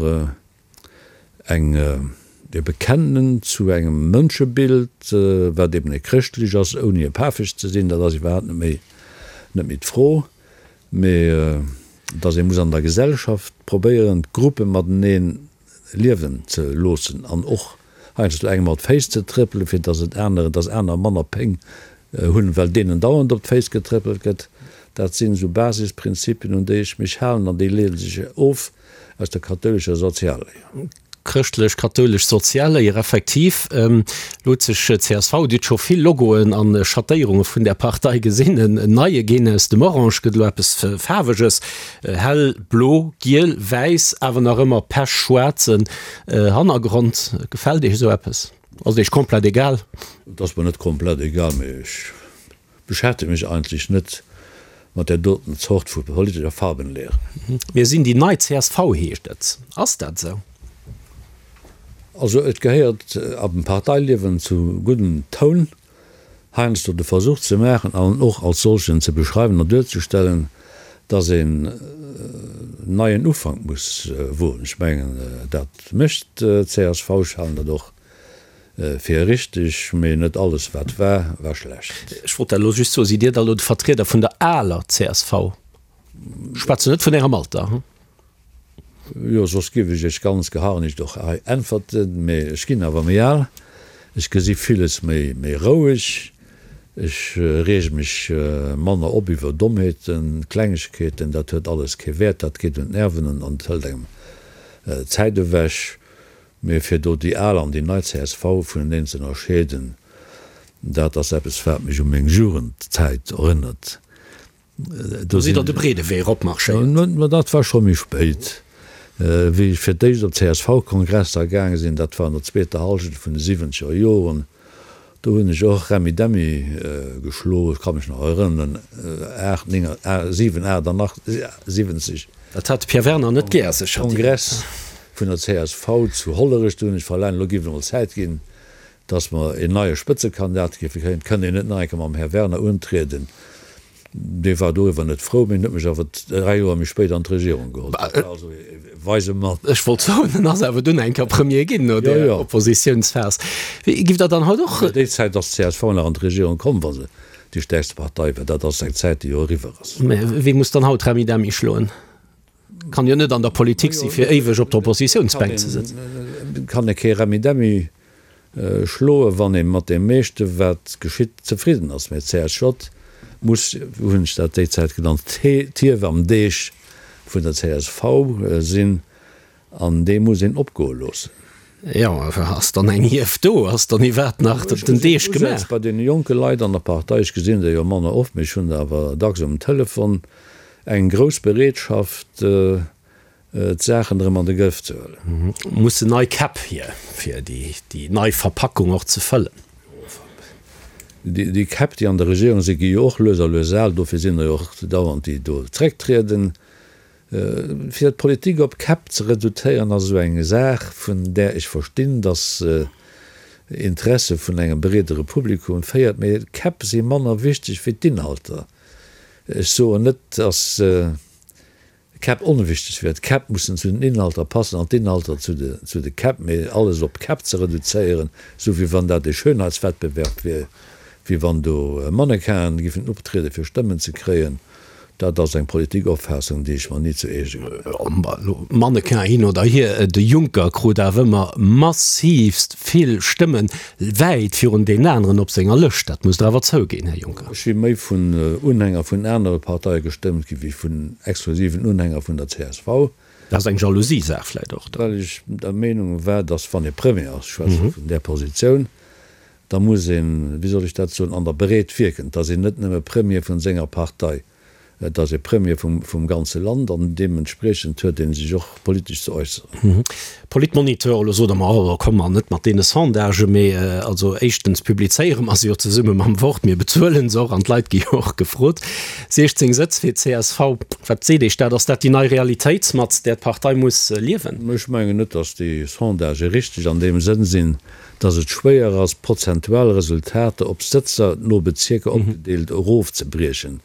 eng e Bekennen zu engem Mënschebild, wat eben e chrëschtlech ass, ouni e pafeg ze sinn, dat ass iwwerhaapt net méi net méi d'Fro, mee datt ee muss an der Gesellschaft probéieren, d'Gruppe matenee liewen ze loossen an och heiansdo engem op d'Féiss ze trëppelen, fir datt et aneren, datt aner manner Péng hunn, well deenen dauernd op d'Féiss getrëppelt gëtt. Dat sinn esou Basisprinzipien, un déi ech mech halen an déi leede sech of Aus der kathoulescher Sozialléier. Chrëschtlech-kathoulesch Sozialléier, effektiv. Elo huet sech csv, Dir hutt scho vill Logoen an Schattéierunge vun där Partei gesinn, en neie ginn. Aus dem Orange gëtt elo eppes Faarweges, hell blo, giel, wäiss, awer nach ëmmer pechschwaarzen Hannergrond. Gefält Iech esou eppes? Ass et Iech komplett egal? Et ass mer net komplett egal, mee ech Beschäftege mech eigentlech net mat där doten Zort vu politescher Farbenlehre. Mir sinn déi nei csv, heescht et. Ass dat esou? Also et gehéiert am Parteiliewen zu guddem Toun, heiansdo de Versuch ze maachen an och als solchen ze beschreiwen an duerzestellen, datt een neien Ufank muss woen. Ech mengen, dat mécht d'CSV. Ech halen dat och Fir richteg, mee net alles wat war, war schlecht. Ech wollt dat elo just soen, Sidd Dir da elo de Vertrieder vun der aler csv? Ech schwätzen net vun Ärem Alter, hm? Jo, soss giff ech Iech ganz geharnischt och hei äntwerten, mee ech ginn awer méi al, ech gesi villes méi méi roueg, ech reege mech manner op iwwer Dommheeten, Klengegkeeten, dat huet alles kee Wäert, dat geet un d'Nerven an et hëlt engem Zäit ewech. Mee fir do déi al an déi nei csv vuneneen ze ënnerscheeden, dat ass eppes, wat mech u meng Jugendzäit erënnert. Do sidd Der de breede Wee eropmarschéiert. Mä dat war scho méi spéit, wéi ech fir d'éischt op d'CSV-Kongresser gaange sinn, dat war an der zweeter Hallschent vun de siwwenzeger Joren. Do hunn ech och Remmi-Demmi geschloen, ech ka mech nach erënneren, 8, 9, 7, 78. Dat hat de Pierre Werner net gär, sécher. Kongress vun der csv zu Hollerech, do hunn ech verlaangt, elo géif et emol Zäit ginn, datt mer een neie Spëtzekandidat géife kréien. Et kënnt een net nach eng Kéier mam Här Werner untrieden. Dee war doriwwer net frou, mee en huet mech awer 3 Joer méi spéit an d'Regierung geholl. Dat war also e weise Mann. Ech wollt soen, en ass awer dunn eng Kéier Premier ginn no där Oppositiounsphas. Giff Der dann haut och. Déi Zäit ass d'CSV nach an d'Regierung komm, wa se déi stäerkste Partei war. Dat ass eng Zäit, déi jo eriwwer ass. Mä wee muss dann haut Remmidemmi schloen? Kann jo net an der Politik si fir éiweg op der Oppositiounsbänk ze sëtzen. Kann ee kee Remmidemmi schloen, wann ee mat deem meeschte wat geschitt zefridden ass. Mä d'CSJ muss, wou hunn ech dat déi Zäit genannt, d'Hief am Deeg vun der csv sinn an dee muss een opgoe loossen. Jo, ass dann eng Hief do? Ass dann iwwerhaapt nach den Deeg gemaach? Bei deene jonke Leit an der Partei, ech gesinn der jo manner oft, mee ech hunn der awer dacks um Telefon, eng grouss Bereetschaft, d'Saachen erëm an de Grëff ze huelen. Mussen nei Käpp hier, fir déi nei Verpackung och ze fëllen. Déi Käpp, déi an der Regierung sinn, gi jo och lues a lues al. Dofir sinn der jo och dauernd, déi do zrécktrieden. Fir d'Politik op Käpp ze reduzéieren, ass esou eng Saach, vun där ech verstinn, datt se Interesse vun engem breedere Publikum féiert. Mee d'Käpp si manner wichteg wéi d'Inhalter. Ech soen net, datt. d'Käpp onwichteg wier. D'Käpp mussen zu den Inhalter passen an d'Inhalter zu de, zu de Käpp. Mee alles op Käpp ze reduzéieren, esou wéi wann dat e Schönheitswettbewerb wier, wéi wann do Mannequinen giffen optriede fir Stëmmen ze kréien, dat ass eng Politikopfaassung, déi ech mer ni zu eege gemaach hunn. Mannequin hin oder hier, de Juncker krut awer ëmmer massivst vill Stëmmen, wäit virun deenen aneren op senger Lëscht. Dat musst Der awer zouginn, Här Juncker. Ech si méi vun Unhänger vun anere Parteie gestëmmt gi wéi vun exklusiven Unhänger vun der csv. Dat ass eng Jalousie-Saach vläicht och. Well ech der Meenung war, datt wann ee Premier ass, ech schwätze vun där Positioun, da muss een, wéi soll ech dat soen, an der Breet wierken. Et ass een net nëmme Premier vun senger Partei, et ass ee Premier vum, vum ganze Land an deementspriechend huet ee sech och politesch ze äusseren. Politmoniteur, Elo sot Der mer, oh, komm mer net mat deene Sondagen, mee also éischtens publizéiere mer se jo zesumme mam Wort, mir bezuelen se och an d'Leit gi jo och gefrot. 16 Sëtz fir d'CSV, wat seet Iech dat? Ass dat déi nei Realitéit, mat där d'Partei muss liewen? Ech mengen net, datt déi Sondagë richteg an deem Sënn sinn, dass et schwéier ass, prozentual Resultater op Sëtzer no Bezierker opgedeelt erofzebriechen.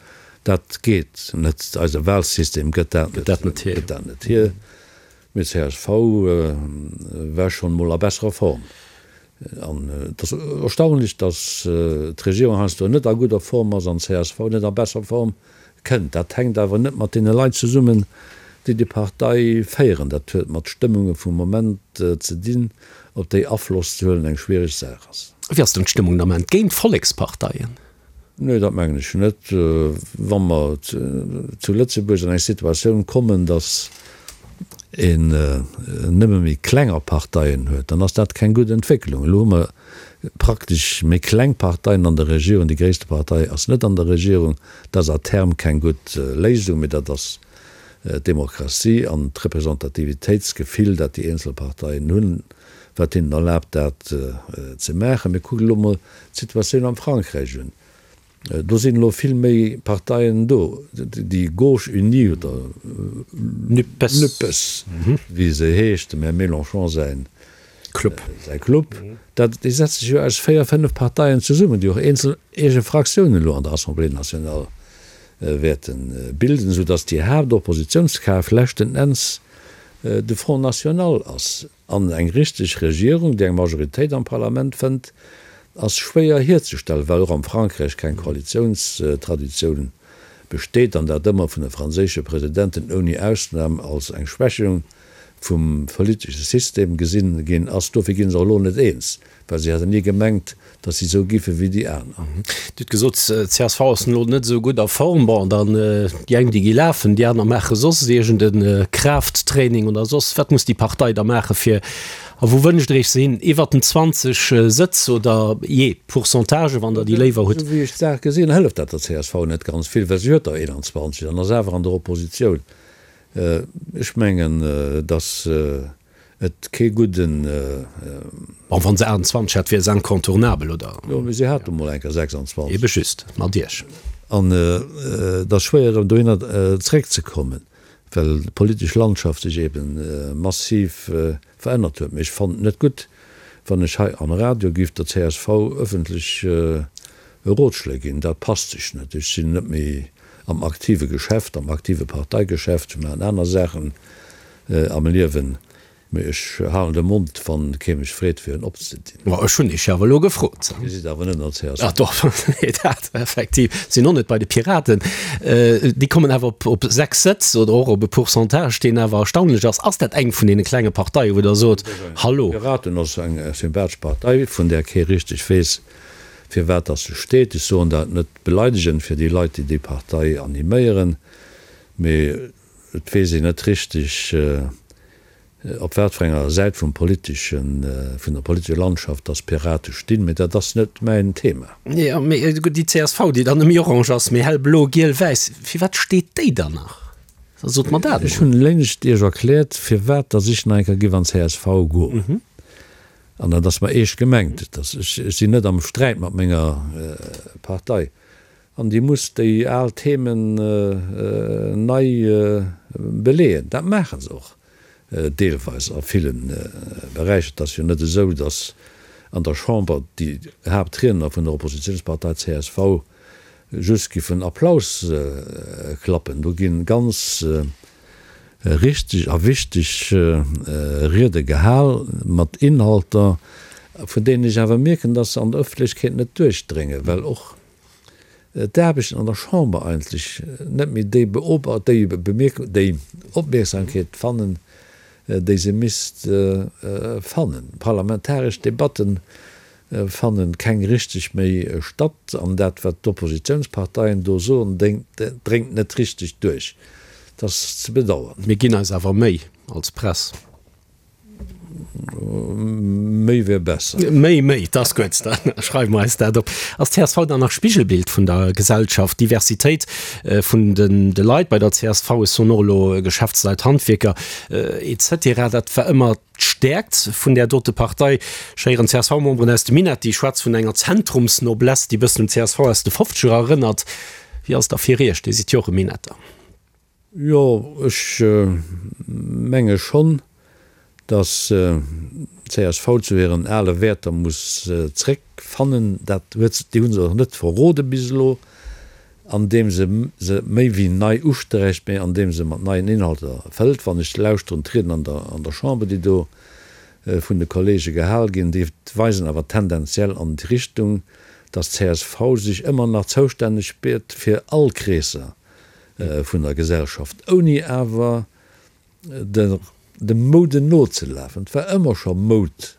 Dat geet net. Eise Wahlsystem gëtt dat net hier. Mee csv war schonn emol a besserer Form. An et ass erstaunlech, dass d'Regierung heiansdo net a gudder Form ass an csv net a besser Form kënnt. Dat hänkt awer net mat deene Leit zesummen, déi déi Partei féieren. Dat huet mat Stëmmunge vum Moment ze dinn, op déi Afloss ze huelen eng schwiereg Saach ass. Wéi ass denn d'Stëmmung den Ament géint d'Volleksparteien? Nee, dat mengen ech net. Wa mer zu Lëtzebuerg an eng Situatioun kommen, datt een nëmme méi klenger Parteien huet, dann ass dat keng gutt Entwécklung. Elo hu mer praktesch méi kleng Parteien an der Regierung, déi gréisste Partei ass net an der Regierung. Dat ass à terme keng gutt Léisung, mee dat ass d'Demokratie an d'Representativitéitsgefill, dat déi eenzel Parteien hunn, wat hinnen erlaabt, dat ze maachen. Mee kuckt elo mol d'Situatioun am Frankräich un. Do sinn elo vill méi Parteien do. Déi Gauche unie oder Nupes, wéi se heescht, dem Här Mélenchon säin Club, säi Club, dat, déi setzt sech jo aus véier, fënnef Parteien zesummen, déi och eenzel eege Fraktiounen elo an der Assemblée nationale wäerte bilden, soudatt déi Haaptoppositiounskraaft leschten Enns de Front national ass. An eng richteg Regierung, déi eng Majoritéit am Parlament fënnt, ass schwéier hierzestellen, well och am Frankräich keng Koalitiounstraditioun besteet an dat ëmmer vun de franséische Presidenten ouni Ausnam als eng Schwächung vum politesche System gesinn ginn ass. Dofir gi se och elo net eens, well si hätten ni gemengt, datt si esou giffe wéi déi aner. Dir hutt gesot, csv ass elo net esou gutt a Form. Bon, dann déi eng, déi gi lafen, déi aner maache soss iergend e Kraafttraining oder soss. Wat muss déi Partei da maache fir, a wou wënscht Der Iech se hin? Iwwert den 20 Sëtz oder jee Pourcentage, wann Der déi léiwer hutt? Esou wéi ech d'Saach gesinn, hëlleft dat der csv net ganz vill, well si huet der 21 an ass awer an der Oppositioun. Ech mengen, datt et kee gudden. Bon, wa se 28 hätt, wier se incontournabel, oder? Jo, mee si hat emol eng Kéier 26. Ebe just, mat Iech. An et ass schwéier, erëm dohinner zeréckzekommen, well d'politesch Landschaft sech ebe massiv verännert huet. Mee ech fannen et net gutt, wann ech hei am Radio giff der csv ëffentlech Rotschléi ginn. Dat passt sech net. Ech sinn net méi am aktive Geschäft, am aktive Parteigeschäft. Ech maachen aner Saachen am Liewen. Mee ech halen de Mond, wann kee mech freet, fir en opzedinn. Ma ech hunn Iech jo awer elo gefrot. Dir sidd awer net an der csv. Ah doch, nee, dat effektiv. Sinn och net bei de Piraten. Déi kommen awer op, op 6 Sëtz oder och op e Pourcentage, deen awer erstaunlech ass. Ass dat eng vun deene klenge Parteien, wou Der sot, Hallo? Piraten ass eng sympathesch Partei, vun där kee richteg weess, firwat dass se steet. Ech soen dat net beleidegend fir déi Leit, déi déi Partei animéieren, mee et weess een net richteg, op wat fir enger Säit vum politeschen, vun der politescher Landschaft dass d'Pirate stinn. Mee dat ass net mäin Thema. Jo, mee gutt, déi csv, déi dann net méi orange ass, mee hellblo, giel, wäiss, firwat steet déi dann nach? Da sot mer dat Ech hunn léngst Iech erkläert, firwat dass ech nach eng Kéier giff an d'CSV goen. An dat ass mer eescht gemengt. Et ass, ech sinn net am Sträit mat menger Partei. An déi muss déi al Themen nei beleeën. Dat maache se och deelweis a ville Beräicher. Et ass jo net esou, datt an der Chamber déi Haaptriedner vun der Oppositionspartei csv just giffen Applaus klappen. Do gi ganz. Richteg a wichteg Riede gehal, mat Inhalter, vun deenen ech awer mierken, dass se an der Ëffentlechkeet net duerchdréngen, well och d'Aarbechten an der Chamber eigentlech net méi déi déi Opmierksamkeet fannen, déi se misst fannen. Parlamentaresch Debatten fannen keng richteg méi statt an dat wat d'Oppositiounsparteien do soen dréngt net richteg duerch. Dat ass ze bedauern. Mir ginn eis awer Méi als Press. Méi wär besser. Méi, méi, dat ass gutt, da schreiwe mer eis dat op. Ass d'CSV dann nach Spigelbild vun der Gesellschaft? D'Diversitéit vun de Leit bei der csv, ech soen och elo Geschäftsleit, Handwierker, etc, dat war ëmmer D'Stäerkt vun där dote Partei. Ech héieren CSV-Memberen aus dem Minett, déi schwätze vun enger Zentrumsnoblesse, déi e bëssen un d'CSV aus de Fofzeger erënnert. Wéi ass et da fir Iech? Dir sidd jo och e Minetter. Jo, ech menge schonn, datt d'CSV zu hiren ale Wäerter muss zréckfannen. Dat huet se, déi hu se och net verrode bis elo. Andeem se se méi wéi nei usträicht, mä andeem se mat neien Inhalter fëllt. Wann ech lauschteren, d'Rieden an der an der Chamber, déi do vun de Kollege gehal ginn, déi weisen awer tendenziell an déi Richtung, dass csv sech ëmmer nach zoustänneg spiert fir all Kreesser vun der Gesellschaft, ouni awer der dem Moude nozelafen. Et war ëmmer scho Moud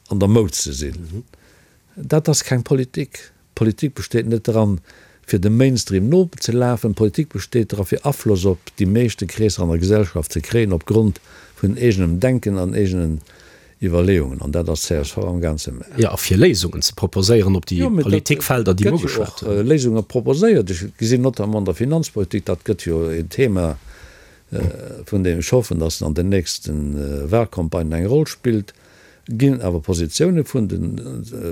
an der Moud ze sinn, dat ass keng Politik. Politik besteet net dran, fir dem Mainstream nozelafen. Politik besteet dra fir Afloss op déi meeschte Kreesser an der Gesellschaft ze kréien, op Grond vun eegenem Denken an eegenen Iwwerleeungen. An dat ass csv am gaang ze maachen. Jo, a fir Léisungen ze proposéieren op déi Politikfelder, déi mer ugeschwat hunn. Et gëtt jo och Léisunge proposéiert. Ech gesinn notamment an der Finanzpolitik, dat gëtt jo een Thema, vun deem ech hoffen, datt en an den nächste Wahlcampagnen eng Roll spillt, ginn awer Positioune vun de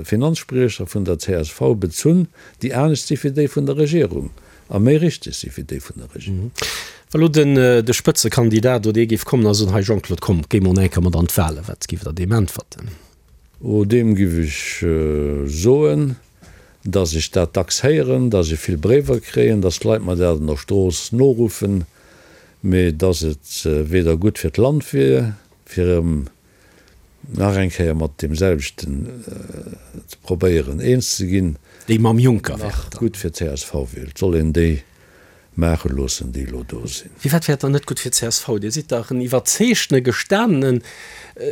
Finanzspriecher vun der csv bezunn, déi anescht si wéi déi vun der Regierung a méi richteg si wéi déi vun der Regierung. Wa lo den de Spëtzekandidat oder ee géif kommen a soen, Hei Jean-Claude, komm, géi mol eng Kéier mat an d'Wahlen, wat géift Der deem äntwerten? Oh, deem géif ech soen, datt ech dat dacks héieren, datt ech vill Bréiwer kréien, datt d'Leit mer dat an der Strooss noruffen, mee datt et weder gutt fir d'Land wier, fir erëm nach eng Kéier mat deem selwechten ze probéieren eens ze ginn, Déi mam Juncker nach gutt fir csv wier. Et soll een déi maache loossen, déi elo do sinn. Firwat wär et dann net gutt fir csv? Dir sidd dach en iwwerzeegtene, gestanenen,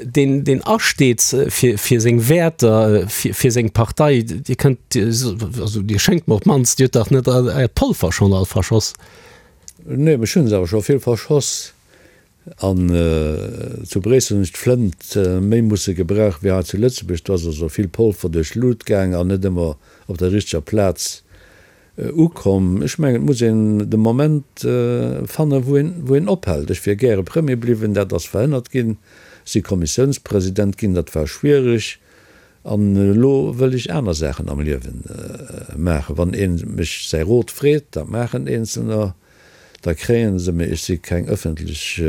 deen, deen asteet fir, fir seng Wäerter, fir, fir seng Partei. Dir kënnt, also Dir schéngt mer op d'mannst, Dir hutt dach net Äert Polver schonn all verschoss? Nee, ech hunn se awer scho vill verschoss. An zu Bréissel hunn ech d'Flënt méi musse gebrauchen wéi hei zu Lëtzebuerg. Do ass also vill Polver duerch d'Lut gaang an net ëmmer op der richteger Plaz ukomm. Ech mengen, et muss een de Moment fannen, wou een, wou een ophält. Ech wier gäre Premier bliwwen, dat ass verhënnert ginn. Ech si Kommissiounspresident ginn, dat war schwiereg. An elo wëll ech aner Saachen am Liewe maachen. Wann ee mech säi Rot freet, dat maachen Eenzelner, Da kréie se, mee ech si keng ëffentlech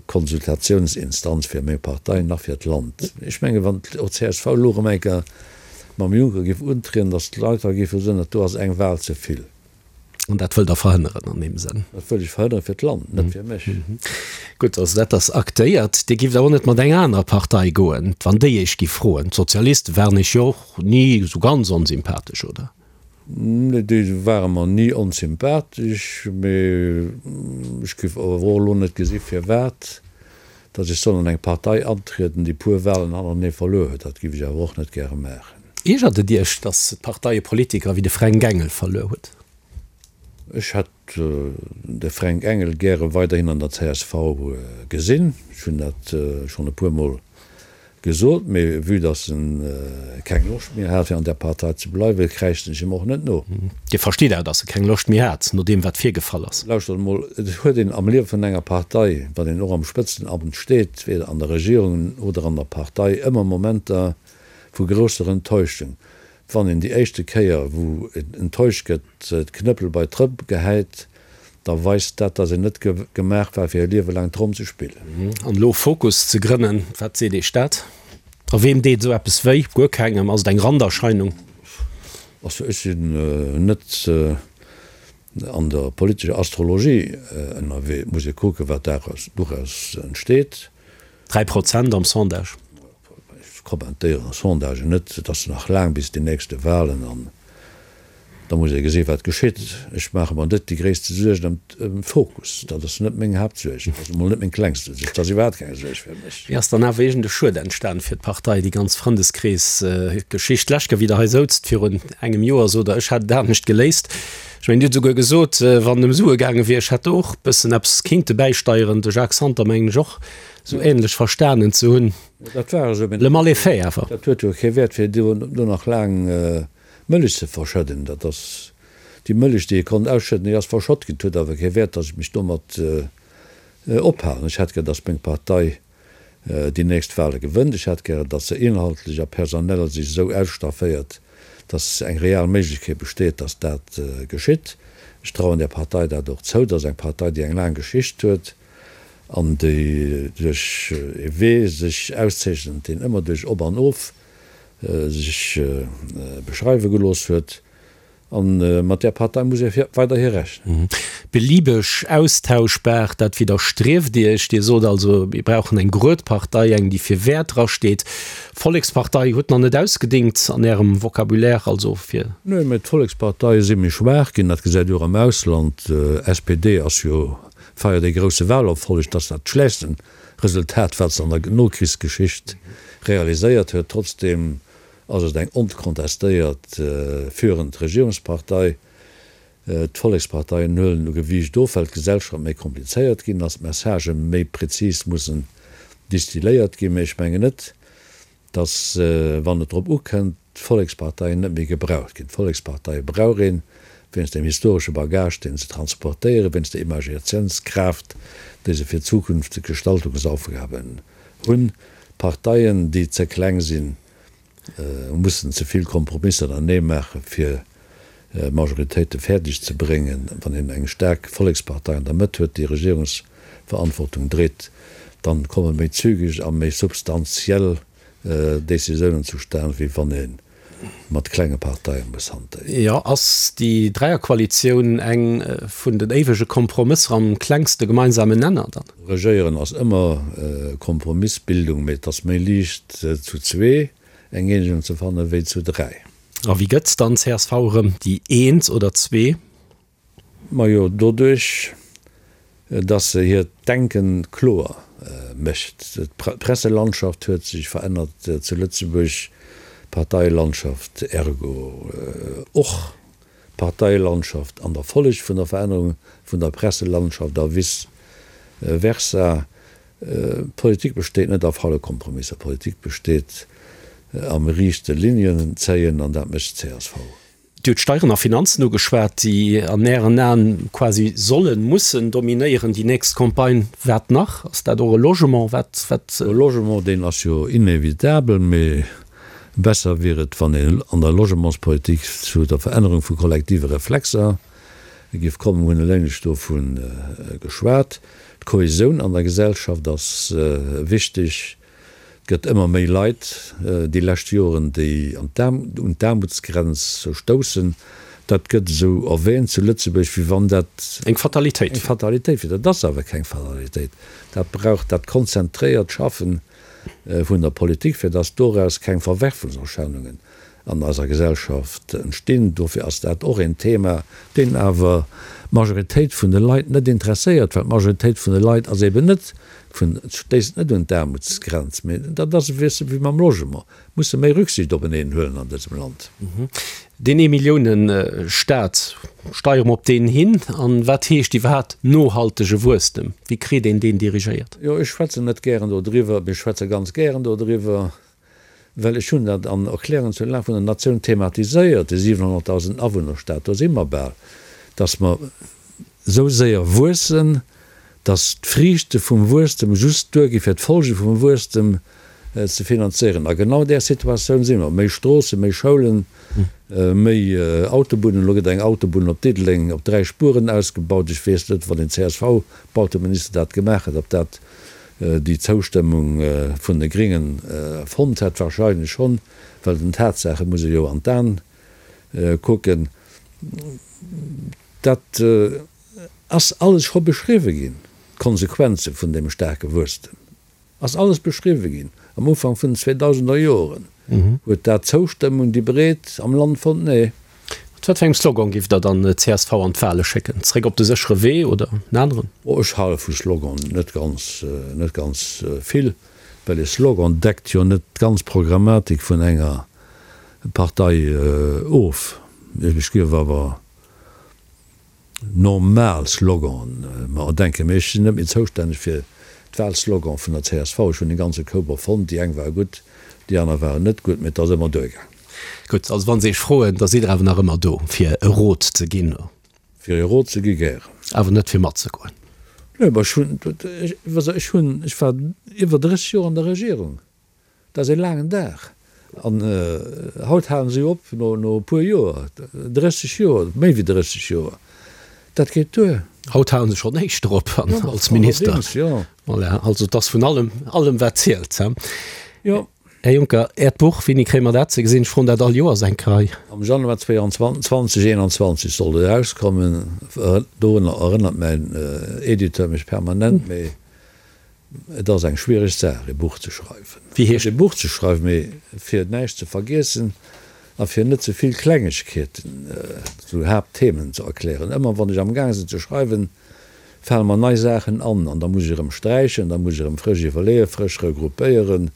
Konsultatiounsinstanz fir meng Partei nach fir d'Land. Ech menge wann och csv elo erëm eng Kéier mam Juncker géif untrieden, datt d'Leit da géife soen, dat do ass eng Wal ze vill. An dat wëllt Der verhënneren an deem Sënn? Dat wëll ech verhënnere fir d'Land, net fir mech. Gutt, also dat ass aktéiert. Dir gifft awer och net mat enger anerer Partei goen, wann déi Iech giff froen? D'Sozialiste waren Iech jo och ni esou ganz onsympathesch, oder? Nee, déi ware mer ni onsympathesch, mee ech géif awer och elo net gesi firwat datt ech soll an eng Partei antrieden, déi puer Wahlen hannertenee verluer huet. Dat géif ech awer och net gäre maachen. Iergert et Iech, datt d'Partei e Politiker wéi de Fränk Engel verluer huet? Ech hätt de Fränk Engel gäre weiderhin an der csv gesinn. Ech hunn dat schonn e puermol Gesot, mee vue dass en keng Loscht méi hat fir an där Partei ze bleiwen, kräischten ech him och net no. Dir verstitt awer, dass e keng Loscht méi hat, no deem wat virgefall ass? Lauschtert emol, et huet een am Liewe vun enger Partei, wann een och am Spëtzenamt steet, weder an der Regierung oder an der Partei, ëmmer Momenter vu grousser Enttäuschung. Wann een déi éischte Kéier, wou een enttäuscht gëtt, d'Knëppel bei d'Rëpp gehäit, da weist dat, datt een net gemaach war, fir e Liewe laang Tromm ze spillen. An elo Fokus ze grënnen, wat seet Iech dat? A weem deet esou eppes wéi? Guer kengem? Ass et eng Randerscheinung? Also ech sinn net. An der politescher Astrologie ënnerwee. Et muss ee kucken, wat doraus entsteet. 3% am Sondage. Ech kommentéieren Sondagen net. Et ass nach laang bis déi nächste Wahlen an da muss ee gesi wat geschitt. Ech maache mer net déi gréisste Suergen ëm Fokus. Dat ass net meng Haaptsuerg. Dat ass emol net meng klengste Suerg. Dat ass iwwerhaapt keng Suerg fir mech. Wéi ass dann awer iergend e Schued entstan fir d'Partei, déi ganz Frëndeskrees-Geschicht? D'lescht Kéier, wéi Der hei souzt virun engem Joer, sot Der, ech hätt et anescht geléist. Ech mengen, Dir hutt esouguer gesot, wann et ëm Sue gaange wier, ech hätt do och e bëssen eppes kinnte bäisteieren. De Jacques Santer mengen ech och esou ähnlech verstanen ze hunn. Dat war esou, mee Le mal est fait awer. Dat huet jo kee Wäert, fir do nach laang Mëllech ze verschëdden. Dat ass déi Mëllech, déi ee konnt ausschëdden, déi ass verschott ginn. Et huet awer kee Wäert, datt ech mech domat ophalen. Ech hätt gär, datt meng Partei déi nächst Wahle gewënnt. Ech hätt gären, datt se inhaltlech a personell sech esou ausstafféiert, datt eng real Méiglechkeet besteet, datt dat geschitt. Ech trauen där Partei dat och zou. Dat ass eng Partei, déi eng laang Geschicht huet an déi duerch ee Wee sech auszeechent, deen ëmmer duerch Op an Of sech beschreiwe gelooss huet. A mat där Partei muss ee weiderhi rechnen. Beliebeg austauschbar, dat widderstrieft Iech. Dir sot also, mir brauchen eng grued Partei, eng déi fir Wäerter asteet. Vollekspartei huet nach net ausgedingt an Ärem Vocabulaire, also fir. Nö, mä d'Volleksparteie si méi schwaach ginn, dat gesäit Dir och am Ausland. SPD ass jo, feiert ee grousse Wahlerfolleg, dat ass dat schlechtsten Resultat, wat se an der Nokrichsgeschicht realiséiert huet. Trotzdem ass et eng onkontestéiert führend Regierungspartei. D'Volleksparteien huelen u Gewiicht of, well d'Gesellschaft méi komplizéiert ginn ass, d'Messagë méi prezis mussen distilléiert ginn. Mee ech mengen net, datt, wann et drop ukënnt, d'Volleksparteien net méi gebraucht ginn. D'Volleksparteie brauch een, wéinst dem historesche Bagage, deen se transportéieren, wéinst der Imagatiounskraaft, déi se fir zukünfteg Gestaltungsaufgaben hunn. Parteien, déi ze kleng sinn, mussen ze vill Kompromisser anenee maachen, fir Majoritéite fäerdeg ze bréngen. Wann een eng staark Vollekspartei an der Mëtt huet, déi Regierungsverantwortung dréit, dann komme méi zügeg a méi substantiell Décisiounen zustan, wéi wann ee mat klenge Parteie muss hantéieren. Jo, ass déi Dräierkoalitioun eng vun den éiwege Kompromësser am klengste gemeinsamen Nenner dann? Regéieren ass ëmmer Kompromissbildung, mee et ass méi liicht zu zwee eng Eenegung ze fannen, wéi zu dräi. A wéi gëtt dann csv erëm déi eent oder zwee? Majo, doduerch, dass se hiert Denken kloer mécht. D'Presselandschaft huet sech verännert zu Lëtzebuerg, d'Parteielandschaft ergo och. D'Parteielandschaft an der Folleg vun der Verännerung vun der Presselandschaft a vice versa. Politik besteet net a faule Kompromisser, Politik besteet am riichte Linien zéien an dat mécht csv. Dir hutt Steieren a Finanzen ugeschwat, déi an Ären Aen quasi sollen, mussen dominéieren déi nächst Campagne. Wat nach? Ass dat och e Logement? Wat, wat? E Logement, deen ass jo inevitabel, mee besser wier et, wann een an der Logementspolitik zu der Verännerung vu kollektive Reflexer géif kommen. Mir hunn eleng lech dovu geschwat. D'Kohesioun an der Gesellschaft ass wichteg. Et gëtt ëmmer méi Leit déi lescht Joren, déi un d'Aarmutsgrenz stoussen. Dat gëtt esou erwähnt zu Lëtzebuerg, wéi wann dat eng Fatalitéit eng Fatalitéit wier. Dat ass awer keng Fatalitéit. Dat brauch dat konzentréiert Schaffen vun der Politik, fir datt doraus keng Verwerfungserscheinungen an eiser Gesellschaft entstinn. Dofir ass dat och een Thema, deen awer d'Majoritéit vun de Leit net interesséiert, well d'Majoritéit vun de Leit ass eben net vun, stéisst net un d'Aarmutsgrenz. Mee dat ass e wéi wéi mam Logement, musse méi Rücksicht openeen huelen an dësem Land. Deen Eemillioune-Staat, steiere mer op deen hin? An wat heescht iwwerhaapt nohaltege Wuesstem? Wéi kritt een deen dirigéiert? Jo, ech schwätzen net gären dodriwwer, mee ech schwätze ganz gären dodriwwer. Well ech hunn dat an Erklärungen zur Lag vun der Natioun thematiséiert, de 700.000 Awunnerstaat, do si mer bal, datt mer esou séier wuessen, datt d'Friichte vum Wuesstem just duergi fir d'Folge vum Wuesstem ze finanzéieren. A genau där Situatioun si mer. Méi Stroossen, méi Schoulen, méi Autobunnen. Elo gëtt eng Autobunn op Diddeleng op 3 Spueren ausgebaut. Ech weess net, wann een CSV-Bauteminister dat gemaach hätt, ob dat déi Zoustëmmung vun de Gringen fonnt hätt, wahrscheinlech schonn, well den Tatsaache muss ee jo an d'An kucken. Dat ass alles scho beschriwwe ginn, d'Konsequenze vun deem staarke Wuesstem ass alles beschriwwe ginn am Ufank vun den zweedausender Joren. Huet dat d'Zoustëmmung, déi breet am Land fonnt? Nee. Mat wat fir engem Slogan giff Der dann d'CSV an d'Wale schécken? Zréck op de séchere Wee oder en aneren? Oh, ech hale vu Sloganen net ganz, net ganz vill, well e Slogan deckt jo net d'ganz Programmatik vun enger Partei of. Ech giff awer normal Sloganen mer erdenken, mee ech sinn net méi zoustänneg fir d'Wahlslogan vun der csv. Ech hunn e ganze Koup erfonnt, déi eng ware gutt, déi aner waren net gutt, mee et ass ëmmer duergaang. Gutt, also wa se Iech froen, da sidd Der awer nach ëmmer do, fir e Rot ze ginn? Fir e Rot ze gi gären. Awer net fir matzegoen? Nee, ma ech hunn, ech hunn, ech war iwwer 30 Joer an der Regierung. Dat ass ee laangen Dag. An haut halen se jo op no e puer Joer, 30 Joer, méi wéi 30 Joer. Dat geet duer. Haut halen se schonn éischter op als Minister. Allerdéngs, jo. Voilà, also et ass vun allem, allem wat zielt. Jo. Här Juncker, Äert Buch, wéini kréie mer dat ze gesinn? Ech froen dat all Joers eng Rei. Am Januar 2021 soll et erauskommen. Dorunner erënnert mäin Editeur mech permanent, mee Et ass eng schwiereg Saach, e Buch ze schreiwen. Wéi heescht e Buch ze schreiwen? Mee fir näischt ze vergiessen a fir net ze vill Klengegkeeten zu Haaptthemen ze erklären. Ëmmer wann ech am Gaang sinn ze schreiwen, fale mer nei Saachen an an da muss ech erëm sträichen, da muss ech erëm frësch iwwerleeën, frësch regroupéieren.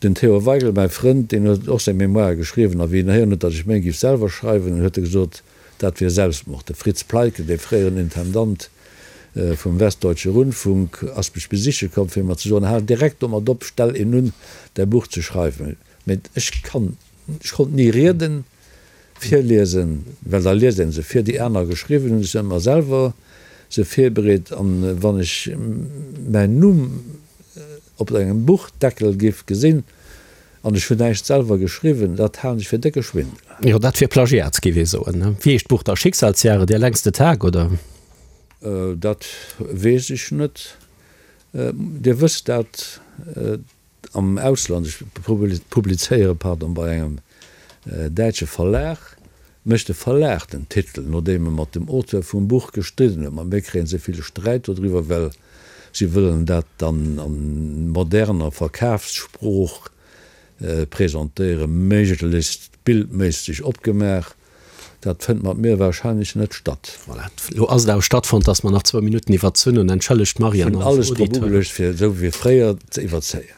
Den Theo Waigel, mäi Frënd, deen huet och seng Mémoire geschriwwen a wéi en héieren huet, datt ech meng giff selwer schreiwen, huet e gesot, Dat wier Selbstmord. De Fritz Pleitgen, dee fréieren Intendant vum Westdeutsche Rundfunk, ass mech besiche komm, fir mer ze soen, Hal direkt domat op, stell een un, däi Buch ze schreiwen. Mee ech kann, ech konnt ni Rieden virliesen, well da liest een se vir, déi aner geschriwwen hunn. Ech hunn ëmmer selwer se virbereet. An wann ech mäin Numm op engem Buchdeckel giff gesinn, An ech hunn näischt selwer geschriwwen, dat halen ech fir décke Schwindel. Jo, dat wier Plagiat, géif ee soen. Wéi heescht d'Buch da? Schicksalsjahre, der längste Tag, oder? Dat weess ech net. Dir wësst dat am Ausland, ech publizéiere, pardon, bei engem däitsche Verlag, mécht de Verlag den Titel, nodeem e mat dem Auteur vum Buch gestridden huet. Mat mir kréie se vill Sträit dodriwwer, well Si wëllen dat dann a moderner Verkafssprooch presentéieren, méiglechst bildméisseg opgemaach. Dat fënnt mat mir wahrscheinlech net statt. Voilà, elo ass et awer stattfonnt, dass mer nach zwou Minutten iwwerzunn hunn. Entschëllegt d'Marianne Ech hunn alles drop ugeluecht, fir esou wéi fréier ze iwwerzéien.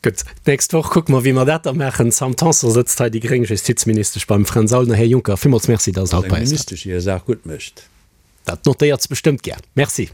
Gutt, d'nächst Woch kucke mer, wéi mer dat da maachen. D'Sam Tanson sëtzt hei, déi gréng Justizministesch beim Fränz Aulner. Här Juncker, villmools Merci, dass Der haut bei eis waart. Eng Ministesch, déi hir Saach gutt mécht. Dat notéiert se bestëmmt gär. Merci.